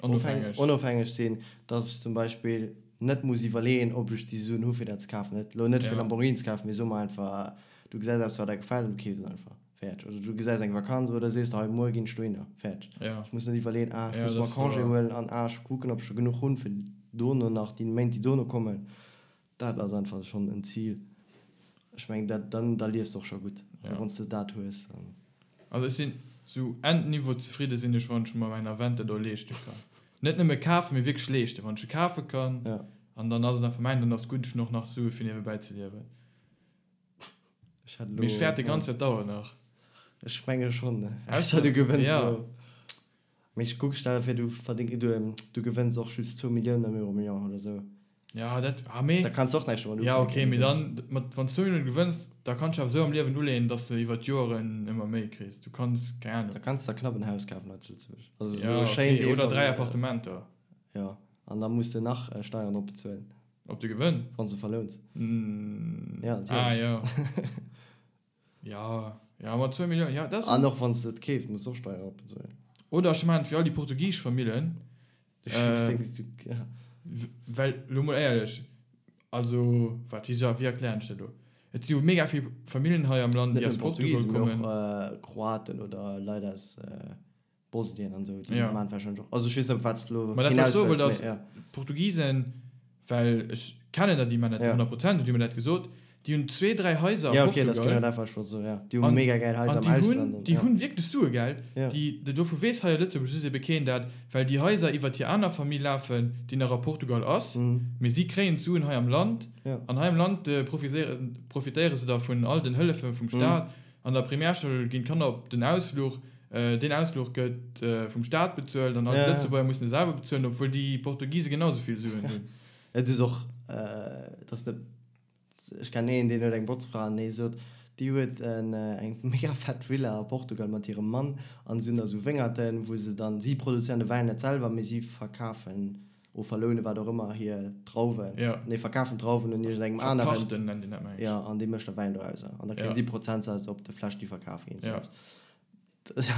Onofhängeg. onofhängeg sinn, dass ech zum Beispill net muss iwwerleeën, ob ech déi Suen hu fir dat ze kafen. Net elo net fir Ja. Lamborghini ze kafen, mee soe mer einfach, du gesäis eppes wat der gefält an du keefs et einfach. Fäerdeg. Oder du gesäis eng Vakanz oder sees der, hei muer ginn ech dohinner. Fäerdeg. Ja. Ech muss net iwwerleeën, ah ech Ja, muss dat mer ass Congé wouer. huelen an ah ech kucken ob ech scho genuch hunn fir dono nach déi Méint déi dono kommen. Dat ass einfach schonn en Zil. Ech mengen, dat, dann, da liefs de och scho gutt. Also Ja. wann s de dat hues, dann. Also ech sinn sou Endniveau zefridde sinn ech, wann ech mer mäin Aventador leeschte kann. Net nëmme kafen, mee wierklech leeschten. Wann ech e kafe kann Ja. an dann ass et einfach mäin, dann ass gutt, ech hunn och nach Sue fir niewebäi ze liewen. Ech hätt Mee ech elo, fäerte ja. ganz, dat dauert nach. Ech menge schonn, Ausser, ausser du gewënns ja. elo. Mee ech kuck, stell der vir, du verdéng, du, du gewënns och just zwou Milliounen am Euromillion oder sou. Ja, dat, ah, mee. Da kanns de och näischt domat Ja, ufänken, okay, mee natierlech. dann, mat, wann s du zwou Milliounen gewënns, da kanns du awer sou am Liewen uleeën, dass de iwwer d'Joeren ëmmer méi kriss. Du kanns, keng Da Ahnung. kanns de der knapp en Haus kafen hei zu Lëtzebuerg. Also sou Ja, e schéint okay, oder 3 Eefamilljen. Appartementer. Ja, an da muss de nach Steieren drop bezuelen. Op de Gewënn? Wann s de verlouns. Ja, natierlech. Ah, ja. Ja, ja, mat zwou Milliounen, ja, dat ass. An och wann s de et keefs, muss de och Steieren drop bezuelen. Oder ech maachen et wéi all déi portugisesch Famillen. Du schécks deng, du, ja. Well, elo mol éierlech, also, wat, wéi, wéi erklären ech dat elo? Et si jo mega vill Famillen hei am Land, Net déi aus nëmmen Portugal Portugisen, mee kommen. och Kroaten oder Leit aus Bosnien an esou, déi Ja. maan wahrscheinlech och, also ech weess net op wat s de elo Ma dat wat ech hinaus soe wëlls, wollt ass, mee ja. d'Portugisen, well ech kennen der déi man net Ja. 100 Prozent, déi hu mir dat gesot, déi hunn zwee, dräi Haiser a Ja okay, dat ass genau Portugal dat wat ech wollt soen, ja. Déi hu an mega gäil Haiser an am déi hunn, Ausland an déi ja. hunn wierklech Sue gell, Ja. déi, dovu weess hei a Lëtzebuerg just ebe keen dat, well déi Haiser iwwert hir aner Famill lafen, déi nach a Portugal ass, mee si kréien d'Suen hei am Land Ja. an hei am Land profiséieren, profitéiere se da vun all den Hëllefe vum Staat. An der Primärschoul ginn d'Kanner op den Ausfluch. Deen Ausfluch gëtt vum Staat bezuelt an all d'Lëtzebuerger mussen e selwer bezuelen, obwuel déi Portugise genau esou vill Suen hunn. Et ass och, et ass net, ech kennen een, deen huet eng Botzfra an dee sot, déi huet eng mega fett Villa a Portugal mat hirem Mann an se hunn da sou Wéngerten, wou se dann, si produzéieren de Wäin net selwer, mee si verkafen o verlounen, wat och ëmmer, hir Drauwen. Ja. Nee, verkafen d'Drauwen un iergendengem aneren. Verpachten nennt een dat, meng ech. Ja, an dee mécht da Wäin dorauser. An da kréien Ja. si Prozentsaz op de Fläsch, déi verkaf ginn. Ja.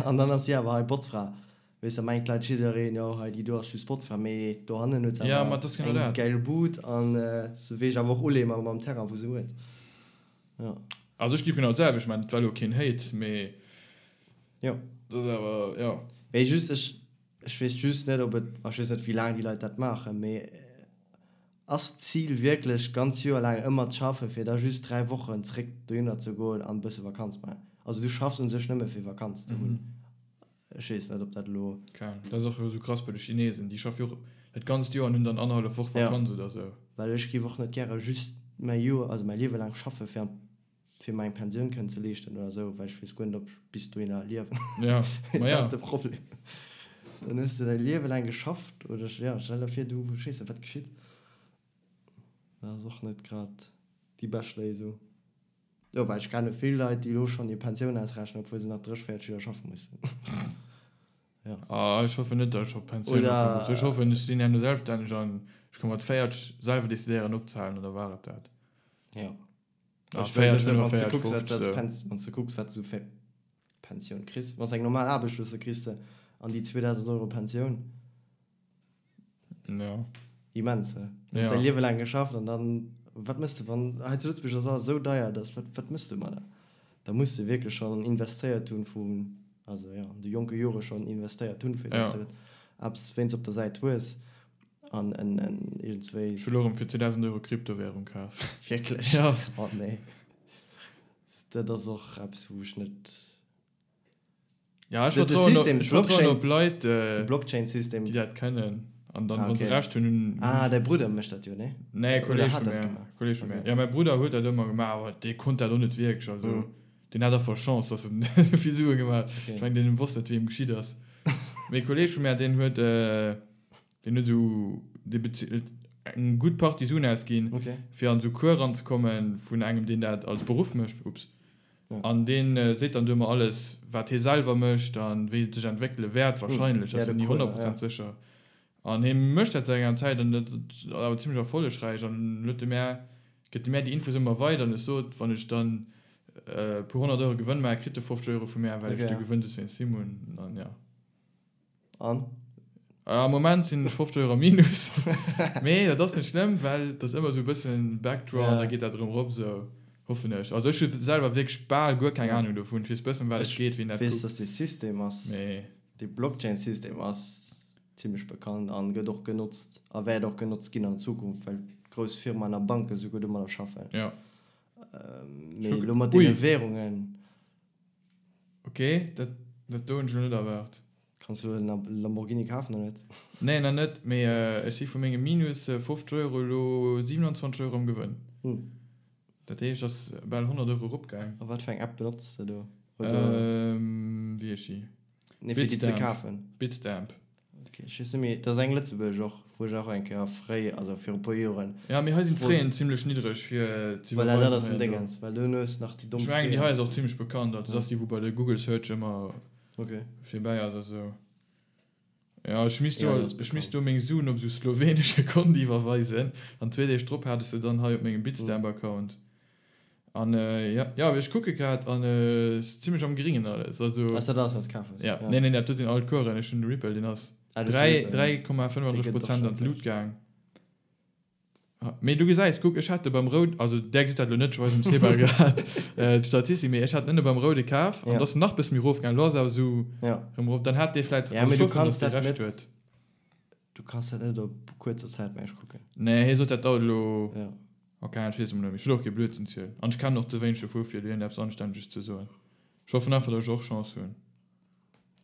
An dann ass si awer hei Botzfra. Weess, da mengt d'Leit jiddereen, jo, hei déi do ass just Botzfra. Mee dohannen huet se Ja, awer ma et ass genau eng dat. gäil Bud an se weess awer och uleeë mam mam Terrain, wou se huet. Ja. Also ech géif genau d'selwecht maachen. Et war elo keen Hate, mee Jo. dat ass awer, jo. Mee just, ech, Ech weess just net, ob et, ech weess net, wéi laang déi Leit dat maachen, mee ass d'Zil wierklech, ganz Joer laang ëmmer ze schaffen, fir da just 3 Wochen zréck dohinner ze goen an e bësse Vakanz maachen? Also du schaffs u sech nëmme fir Vakanz ze hunn. Ech weess net, ob dat elo. Keng Ahnung. Dat ass och esou krass bei de Chinesen. Déi schaffe jo och. dat ganzt Joer an hunn dann annerhallef Woch Vakanz oder sou. Well ech géif och net gäre just mäi Joer, also mäi Liewe laang schaffe fir an fir mer eng Pensioun kënnen ze leeschten oder sou, well ech weess guer net, ob ech bis dohinner liewen. Ja, ma Dat ja. ass de Problem. Dann hues de däi Liewe laang geschafft oder, ja, stell der vir, du, ech weess net, wat geschitt. Dat ass och net grad déi bescht Léisung. Jo, well ech kenne vill Leit, déi elo schonn hir Pensioun ausrechnen, obwuel se nach 30, 40 Joer schaffe mussen. Ja. Ah, ech hoffen net, datt ech op Pensioun schaffe muss. Ech hoffen, ech sinn herno selbststänneg an ech ka mat 40 selwer decidéieren opzehalen an da war et dat. Ja. Ah, Ech wëll 40, sou, wann s de 45, kucks, wat 50 du sou. wann s de kucks, wat s du fir Pensioun kriss. Wann s eng normal Aarbecht hues, da kriss de an déi 2.000 Euro Pensioun. Ja. Immens, he? Du hues Ja. däi Liewe laang geschafft an dann, wat méchs de, wann, hei zu Lëtzebuerg ass alles esou deier, dass, wat, wat méchs de mat der? Da muss de wierklech schonn investéiert hunn vun, also jo, an de jonke Jore schonn investéiert hunn, fir dass Ja. de eppes wéinst op der Säit hues an en, en iergendswéi. Ech hu lo erëm fir 2.000 Euro Kryptowährung kaf. Wierklech? Ja. Oh nee. Dat ass och eppes, wou ech net. Ja, ech De, de vertrauen op, System, ech vertrauen op Blockchain, Leit, de äh, Blockchain-System. déi dat kennen. An dann, Ah, wann se okay. Recht hunn, hunn. Ah, däi Brudder mécht dat jo, nee? Nee, Oder Kolleg hat vu dat mär. gemaach? Kolleg vu mär. Okay. Ja, mäi Brudder huet dat ëmmer gemaach, awer dee konnt dat och net wierklech. Also, Mhm. deen hat einfach Chance, dass en esou vill Sue gemaach huet. Okay. Ech mengen, deen wosst net, wéi em geschitt ass. Mee e Kolleg vu mär, deen huet, äh, deen huet esou, dee bezilt eng gutt Partie Suen ausginn, Okay. fir an esou Cours ranzekommen vun engem, deen dat als Beruff mécht. Ups. Ja. An deen seet dann du ëmmer alles, wat hie selwer mécht an wéi et sech entwéckele wäert, wahrscheinlech, Ja, ass jo de ni Cours, 100 ja. Prozent sécher. An hie mécht dat säit enger Zäit an dat ass awer zimmlech erfollegräich an huet de mär, gëtt de mär déi Infos ëmmer weider an ech sot, wann ech dann e puer 100 Euro Gewënn maachen, kritt e 50 Euro vu mär, well ech Okay, de ja. Gewënn soss wéinst him hunn an ja. An? Am Moment sinn ech 50 Euro am Minus. Mee dat ass net schlëmm, well dat ass ëmmer esou e bëssen Backdraw an da geet dat erëm erop, esou hoffen ech. Also ech hu selwer wierklech bal guer keng Anung dovun. Ech weess bëssen, ëm wat et geet, wien dat Ech weess, kuckt. dass dee System ass, Mee. dee Blockchain-System ass zimmlech bekannt an gëtt och genotzt a wäert och genotzt ginn an Zukunft, well grouss Firmaen a Banke souguer domadder schaffen. Jo. Mee elo mat deene Währungen. Ok, dat dat do hunn ech elo net erwaart. Kanns du en Lamborghini kafen oder net? Nee, nach net, mee ech si vu menge minus 50 Euro elo 27 Euro am Gewënn. Dat heescht, et ass bal 100 Euro eropgaang. A wat fir eng App benotz de do? Oder? Wéi heescht déi? Nee, fir déi ze kafen. Bitstamp. Ok, ech weess net méi, et ass eng lëtzebuergesch och, wou ech och eng Kéier fréi, also viru puer Joren. Ja, mee hei sinn d'Fraien zimlech niddreg fir ze iwwerweisen. Voilà, dat ass den Déngens, well du hues nach déi domm Ech mengen, déi hei ass och zimlech bekannt, also dat ass déi, wou bei de Google Search ëmmer virbäi ass a sou. Ja, ech misst do, ech misst do meng Suen op sou slowenesche Kont iwwerweisen an zwee Deeg drop hat ech se dann hei op mengem Bitstamp-Account. An jo, jo, ech kucke grad an ass zimlech am Gringen alles. Also. Ass dat alles wat s kaf hues? Ja, nee, nee, dat do sinn all d'Coursen. Ech hunn de Ripple, deen ass 3,35 Prozent an d'Lut gaang. Mee du gesäis, kuck, ech hat de beim Roud, also där gesitt dat elo net, ech weisen dem Seba grad d'Statistik, mee ech hat en ënne beim Roude kaf an et ass nach bësse méi erofgaang. Elo ass awer esou erëm erop. Dann hat dee vläit, also ech hoffen, datt dee Recht huet. Du kanns dat net op kuerzer Zäit mengen ech kucken. Nee, hie sot dat dauert elo. Ja. Ok, ech weess emol net méi. Ech wëll och kee Blödsinn zielen. An ech kennen och ze wéineg dovu fir iergendeppes Anstänneges ze soen. Ech hoffen einfach, datt ech och Chance hunn.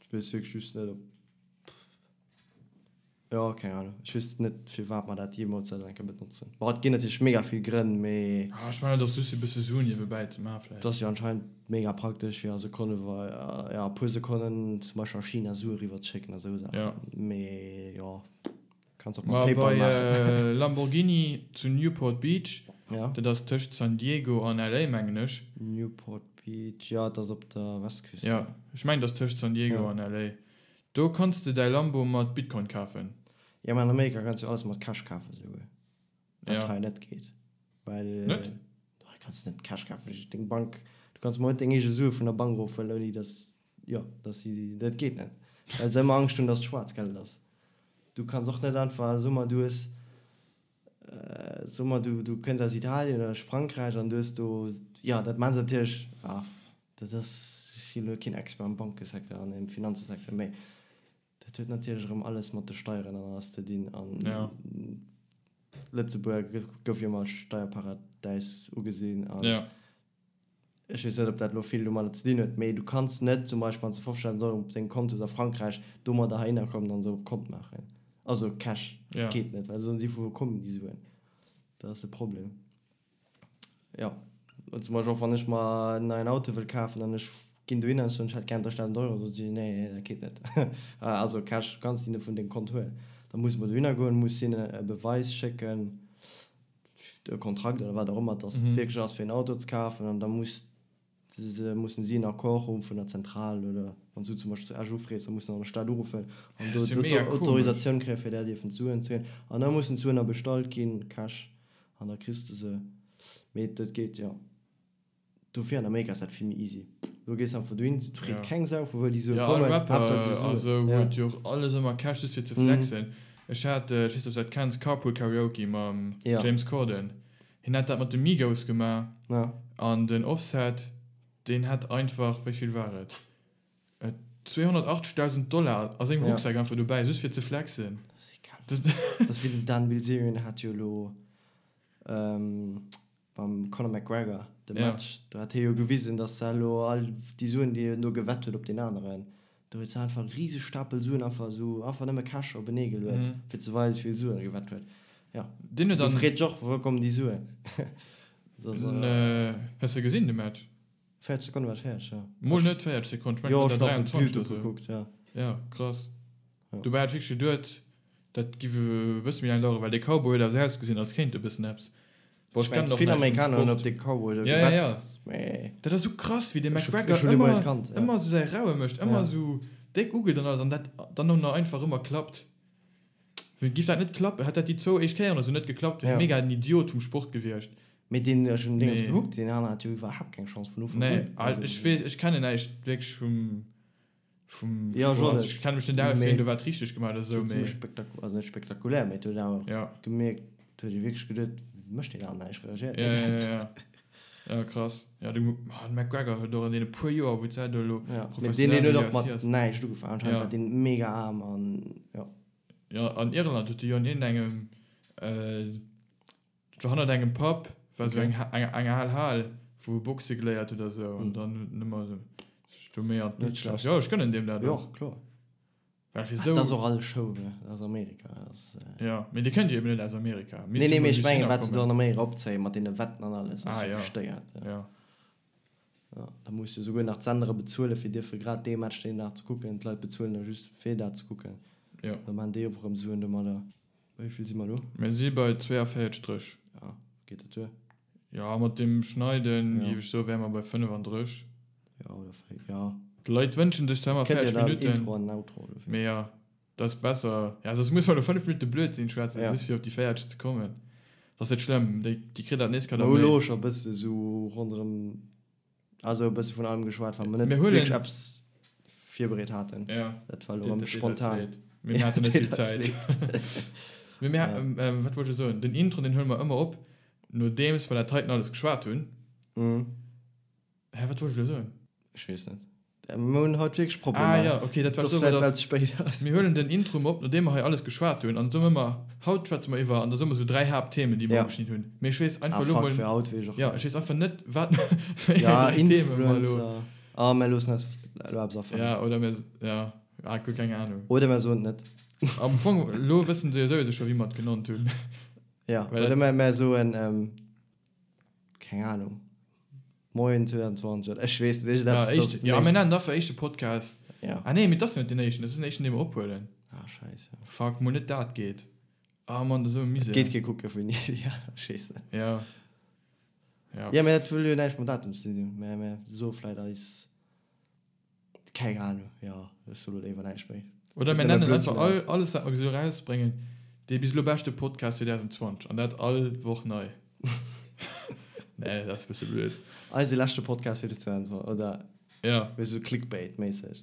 Ech weess wierklech just net op, jo, keng Ahnung. Ech weess net firwat mer dat jeemools sollen eng Kéier benotzen. Bon, et ginn natierlech mega vill Grënn, mee. Ah, ech mengen et ass just fir e bësse Suen niewebäi ze maachen vläicht. Et ass jo anscheinend mega praktesch fir a Sekonne, ja, a puer Sekonnen zum Beispill a China Sue eriwwer ze schécken a sou Saachen. Mee jo, kanns och mat Ma PayPal bei maachen. Lamborghini zu Newport Beach, Ja. dat ass tëscht San Diego an LA mengen ech. Newport Beach, jo, et ass op der Westküst. Ja, ech mengen et ass tëscht San Diego Ja. an LA. Do kanns de däi Lambo mat Bitcoin kafen. Ja, mä an Amerika kanns du alles mat Cash kafen esouguer. Wat Ja. hei net geet. Well Net? hei kanns du net Cash kafen. Deng Bank, du kanns mol net deng eege Sue vun der Bank erofhuelen, ouni datt, jo, datt si, dat geet net. Well se ëmmer Angscht hunn, datt et Schwaarzgeld ass. Du kanns och net einfach, so mer, du hues, so mer, du, du kënns aus Italien oder aus Frankräich an du hues do, jo, dat maache se natierlech, ah, dat ass, ech sinn elo keen Expert am Bankesecteur an am Finanzesecteur, mä Dat huet natierlech erëm alles mat de Steieren an alles ze dinn. An Ja. Lëtzebuerg gouf jo ëmmer als Steierparadäis ugesinn. An Ja. ech weess net, ob dat elo vill domadder ze dinn huet, mee du kanns net zum Beispill, wann s de 50.000 Euro op dengem Kont hues a Frankräich, domadder heihinner kommen an se op Kont maachen. Also Cash. Ja. Dat geet net, well soen si, vu wou kommen déi Suen? Dat ass de Problem. Jo, zum Beispill och wann ech mer en neien Auto wëll kafen an ech ginn dohinner an ech soen, ech hätt gären 3.000 Euro, soe si, nee, nee, dat geet net. Also Cash kanns de net vun dengem Kont huelen. Da muss mer dohinner goen, muss hinnen e Beweis schécken, e Kontrakt oder wat och ëmmer, dass et wierklech ass fir en Auto ze kafen an da muss se, mussen si en Accord hu vun der Zentral oder wann s du zum Beispill zu Esch ufrees, da muss de an der Stad uruffen an do d'Autorisatioun kréien, fir där dierfen d'Suen ze huelen. An da mussen d'Suen da bestallt ginn, Cash, an da kriss de se. Mee dat geet, jo. Dofir an Amerika ass dat vill méi easy. Do gees de einfach dohin, et freet keng Sau vu wou déi Sue Jo, all kommen, Rapper Haaptsaach se hu a Suen. sou Ja. huet jo och alles ëmmer Cash just fir ze flexen. Ech hat, ech weess net ob s dat kenns, Carpool Karaoke mam Ja. James Corden. Hien hat dat mat de Migos gemaach Ja. an den Offset, deen hat einfach, wéi vill war et, 280.000 Dollar a sengem Ja. Rucksak einfach dobäi, just fir ze flexen. Dat ass egal. Dat ass wéi den Dan Bilzerian hat jo elo mam Conor McGregor de Ja. Match, do hat hie jo gewisen, datt se elo all déi Suen, déi en do gewett huet op deen aneren, do huet se einfach e riseg Stapel Suen einfach esou, einfach nëmme Cash openee geluet, fir ze weisen, wéi vill Suen e gewett huet. Ja. Deen huet Do dann. freet sech och, wou kommen déi Suen? Dat ass. Hues de gesinn de Match? 40 Sekonne war et fäerdeg, jo. Mol net 40 Sekonnen, ech mengen Jo, et ech war hun der einfach 23 YouTube oder sou. gekuckt, ja. Ja, krass. Ja. Dobäi hat ech wierklech geduet, dat giff e bësse méi laang daueren, well dee Cowboy huet awer sou ausgesinn, als kéint e bëssen eppes. Bon, Ech ech mengen, kennen och vill näischt vum Amerikaner hunn op Sport. dee Cowboy do Ja, ja, ja. gewett, mee Dat ass sou krass, wéi dee ech hu McGregor ech hunn dee mol ëmmer, net kannt, ja. ëmmer sou säi Raue mécht, ëmmer Ja. sou déck ugeet an alles an dat dann och nach einfach ëmmer klappt. Wéi giff dat net klappen, hätt dat déi zwou éischt Kéieren oder sou net geklappt, wier Ja. mega den Idiot vum Sport gewiescht. Mee deen, ech hunn Dinges Mee. gekuckt, deen aneren hat jo iwwerhaapt keng Chance vun Ufank Nee, un. also ech weess, ech kennen näischt wierklech vum, vum Ja, Sport. ech och Ech net. kenne mech net aus, Mee wien do wat richteg gemaach huet oder sou, Et huet mee. zimmlech spektaku-, also net spektakulär, mee et huet awer Ja. gemierkt, et huet ee wierklech geduet, mécht deen aneren näischt, reagéiert Ja, deen ja, net? ja, ja. Ja, krass. Ja, de McGregor huet och an deene puer Joer, wou d'Säit elo Ja, mee deen, professionell deen huet och UFC mat ass. näischt ugefaangen, anscheinend Ja. war deen mega aarm an jo. Ja, an Irland huet de jo an iergendengem, äh, dat war hannert engem Pub, war sou Okay. eng, eng, eng al Hal, wou e Boxe geléiert huet a sou, an Hm. dann huet en ëmmer sou sech do méi an Net d'Luucht gesat. schlecht. Jo, ech gönnen deem dat Jo, och. kloer. Well fir Ah, sou. dat ass och alles Show, ne? Dat ass Amerika, dat ass. Ja, mee déi kënnt jo eben net aus Amerika. Nee, Misst nee, jo mee mol ech bis mengen, hinner wat se do kommen. an Amerika opzéien, mat deene Wetten an alles, ass Ah, jo ja. bestéiert. Ja. Ja. Ja, da muss de souguer nach d'Sendere bezuelen, fir dierfe grad dee Match deen Dag ze kucken. D'Leit bezuelen da just fir dat ze kucken. Ja. Da maachen déi och erëm Suen domadder. Bei wéi vill si mer elo? Mir si bei 42 Stréch. Ja, geet dat duer? Ja, mat dem Schneiden, Ja. géif ech soen, wäre mer bei 35. Ja, oder véi, ja. D'Leit wënschen sech zwar ëmmer Kënnt jo 40 dann Minutten. Intro an Outro dofir. Mee ja, dat ass besser. Ja, soss muss mer elo 5 Minutte Blödsinn schwätzen, Ja. just fir op déi 40 ze kommen. Dat ass net schlëmm, déi, déi kritt dat nees Mer hu elo scho e bësse sou ronderëm, also e bësse vun allem geschwat, wa mer net Mir huelen- wierklech eppes virbereet haten. Ja. Dat war elo Deet- erëm deet eis spontan. leed. Mee mir haten net vill Deet eis Zäit. leed. Mee mir, Ja. ähm, wat wollt ech soen? Den Intro, deen huele mer ëmmer op, nodeems mer dat heiten alles geschwat hunn. Mhm. Hä, wat wollt ech elo soen? Ech weess net. Mir hunn haut wierklech Problemer. Ah ja, okay, dat war Dat ass so, vläicht, dass well et spéit ass. Mir huelen den Intro op, nodeem mer hei alles geschwat hunn, an soen ëmmer, haut schwätze mer iwwer, an da soe mer sou 3 Haaptthemen, déi mer Ja. ugeschnidden hunn. Mee ech weess einfach Ah, elo fuck, mol, fir haut weess ech och ja, net. ech weess einfach net, wat, wéi eng Ja, 3 Themen mer elo. Influencer. Ah, mir loossen eis elo eppes afalen. Ja, oder mir, ja, ah, guer keng Ahnung. Oder mir soen et net. Am Fong, elo wëssen se jo souwisou scho, wéi mer et genannt hunn. Ja, Well oder dat- mer, mer soen, ähm, keng Ahnung. Moien 2020 oder ech weess net, Ja, iergendeppes, éischt, dass ja, den mir nennen dafür éischte Podcast. Ja. Ah nee, mee dat ass jo net den éischten, dat ass den éischten, dee mer ophuelen. Ah, scheiße. Fuck, mol net dat geet. Ah Mann, dat ass esou e Misär. Et geet kee kucke vun ja, ech weess net. Ja. Ja. Ja, mee dat wëll jo näischt mam Datum ze dinn hunn. Mä mä soe vläit eis. Keng Ahnung, jo, ech soe lo léiwer näischt méi. Oder mir Kënnt nëmme nennen Blödsinn einfach all, eraus. alles wat mer esou erausbréngen, dee bis elo beschte Podcast 2020 an dat all Woch nei. Nee, dat ass e bësse blöd. Eise leschte Podcast fir 2020, oder? Ja. Wéi sou Clickbait-méisseg.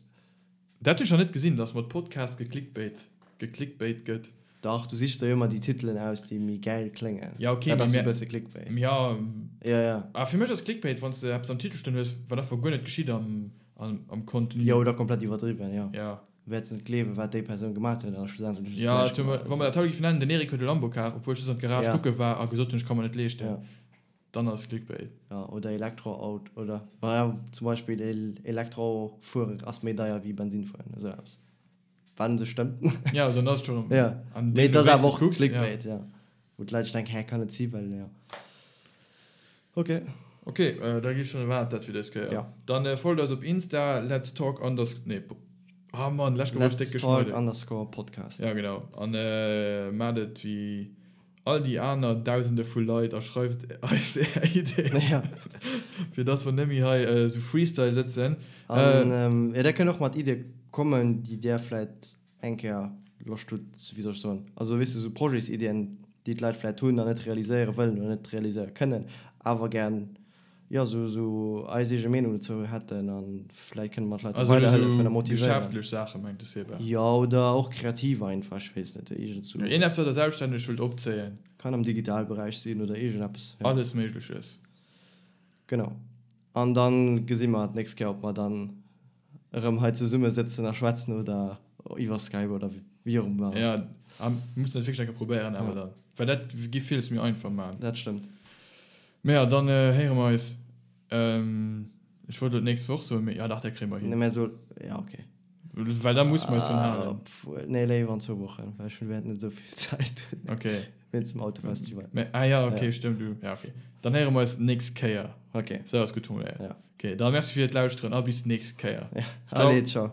Dat hunn ech nach net gesinn, dass mat Podcast geklickbait, geklickbait gëtt. Dach, du sichs der jo ëmmer déi Titelen aus, déi méi gäil kléngen. Ja, okay, Dat mee ass sou mir, e bësse Clickbait. ja, Ja, ja. ah, fir mech ass Clickbait, wann s de eppes am Titel stoen hues, wat einfach guer net geschitt am, am, am Contenu. Jo, oder komplett iwwerdriwwen, jo. Ja. Wäerts net gleewen, wat déi Persoun gemaat huet, a schlussendlech hues du Ja, näischt zum, gemaat. wa mer dat haut géifen nennen, den Eric huet e Lambo kaf, obwuel ech just an d'Garage Ja. kucke war a gesot hunn, ech ka mer net leeschten. Ja. Dann ass Clickbait. Ja, oder Elektroauto, oder, ja, zum Beispill Elektrofuere ass méi deier wéi Bensin fueren, esou eppes. Wat un sech stëmmt. Ja, dann ass et schon. Ja. An Mee et deemno ass wéis awer du och kucks, ja. Clickbait, ja. Wou d'Leit sech denken, hä, kann net si, well, ja. Ok. Ok, da gi schon war dat fir dës Kéier. Ja. Dann folgt eis op Insta, let's talk unders-, nee, ah Mann, lescht Kéier wor ech déck Let's talk geschneiden. underscore podcast. Ja, genau. An maacht et wéi all déi aner Dausende vu Leit a schreift eis är Ideen, Ja. fir dass mer net méi hei esou Freestyle sëtzen. An jo, där kënnt och mat Iddie kommen, déi där vläit eng Kéier Loscht hutt, wéi soll ech soen, also weess de, esou Projetsiddien, déi d'Leit vläit hunn an net realiséiere wëllen oder net realiséiere kënnen, awer gär, jo, esou, esou eis eege Meenung dozou hätten a vläit kënne mer d'Leit do Also weiderhëllefen a esou motivéieren. geschäftlech Saache mengt de Seba? Jo, oder och kreativ einfach, ech weess net, iergend sou. Jo, iergendeppes, wat der selbststänneg wëllt opzéien. Kann am Digitalberäich sinn oder iergendeppes, jo. Alles Méigleches. Genau. An dann gesi mer d'nächst Kéier, ob mer dann erëm hei zesumme sëtzen a schwätzen oder iwwer Skype oder wéi och ëmmer. Ja, a mir mussen dat wierklech eng Kéier probéieren awer dann, well dat giff villes méi einfach maachen. Dat stëmmt. Mee ja, dann héiere mer eis, ech wollt elo d'nächst Woch soen, mee ja dach, dat kréie mer hin. Nee, mä so, ja okay. Well da musse mer eis drun halen. Obwuel, nee, léiwer an zwou Wochen, well ech hunn wäert net esou vill Zäit hunn. Okay. Wéinst dem Autofestival. Mä, ah ja, okay, stëmmt, du, ja okay. Dann héiere mer eis d'nächst Kéier. Okay. Sou ass gutt formuléiert. Ja. Okay, da merci fir d'Lauschteren a bis d'nächst Kéier. Ja, allez, ciao.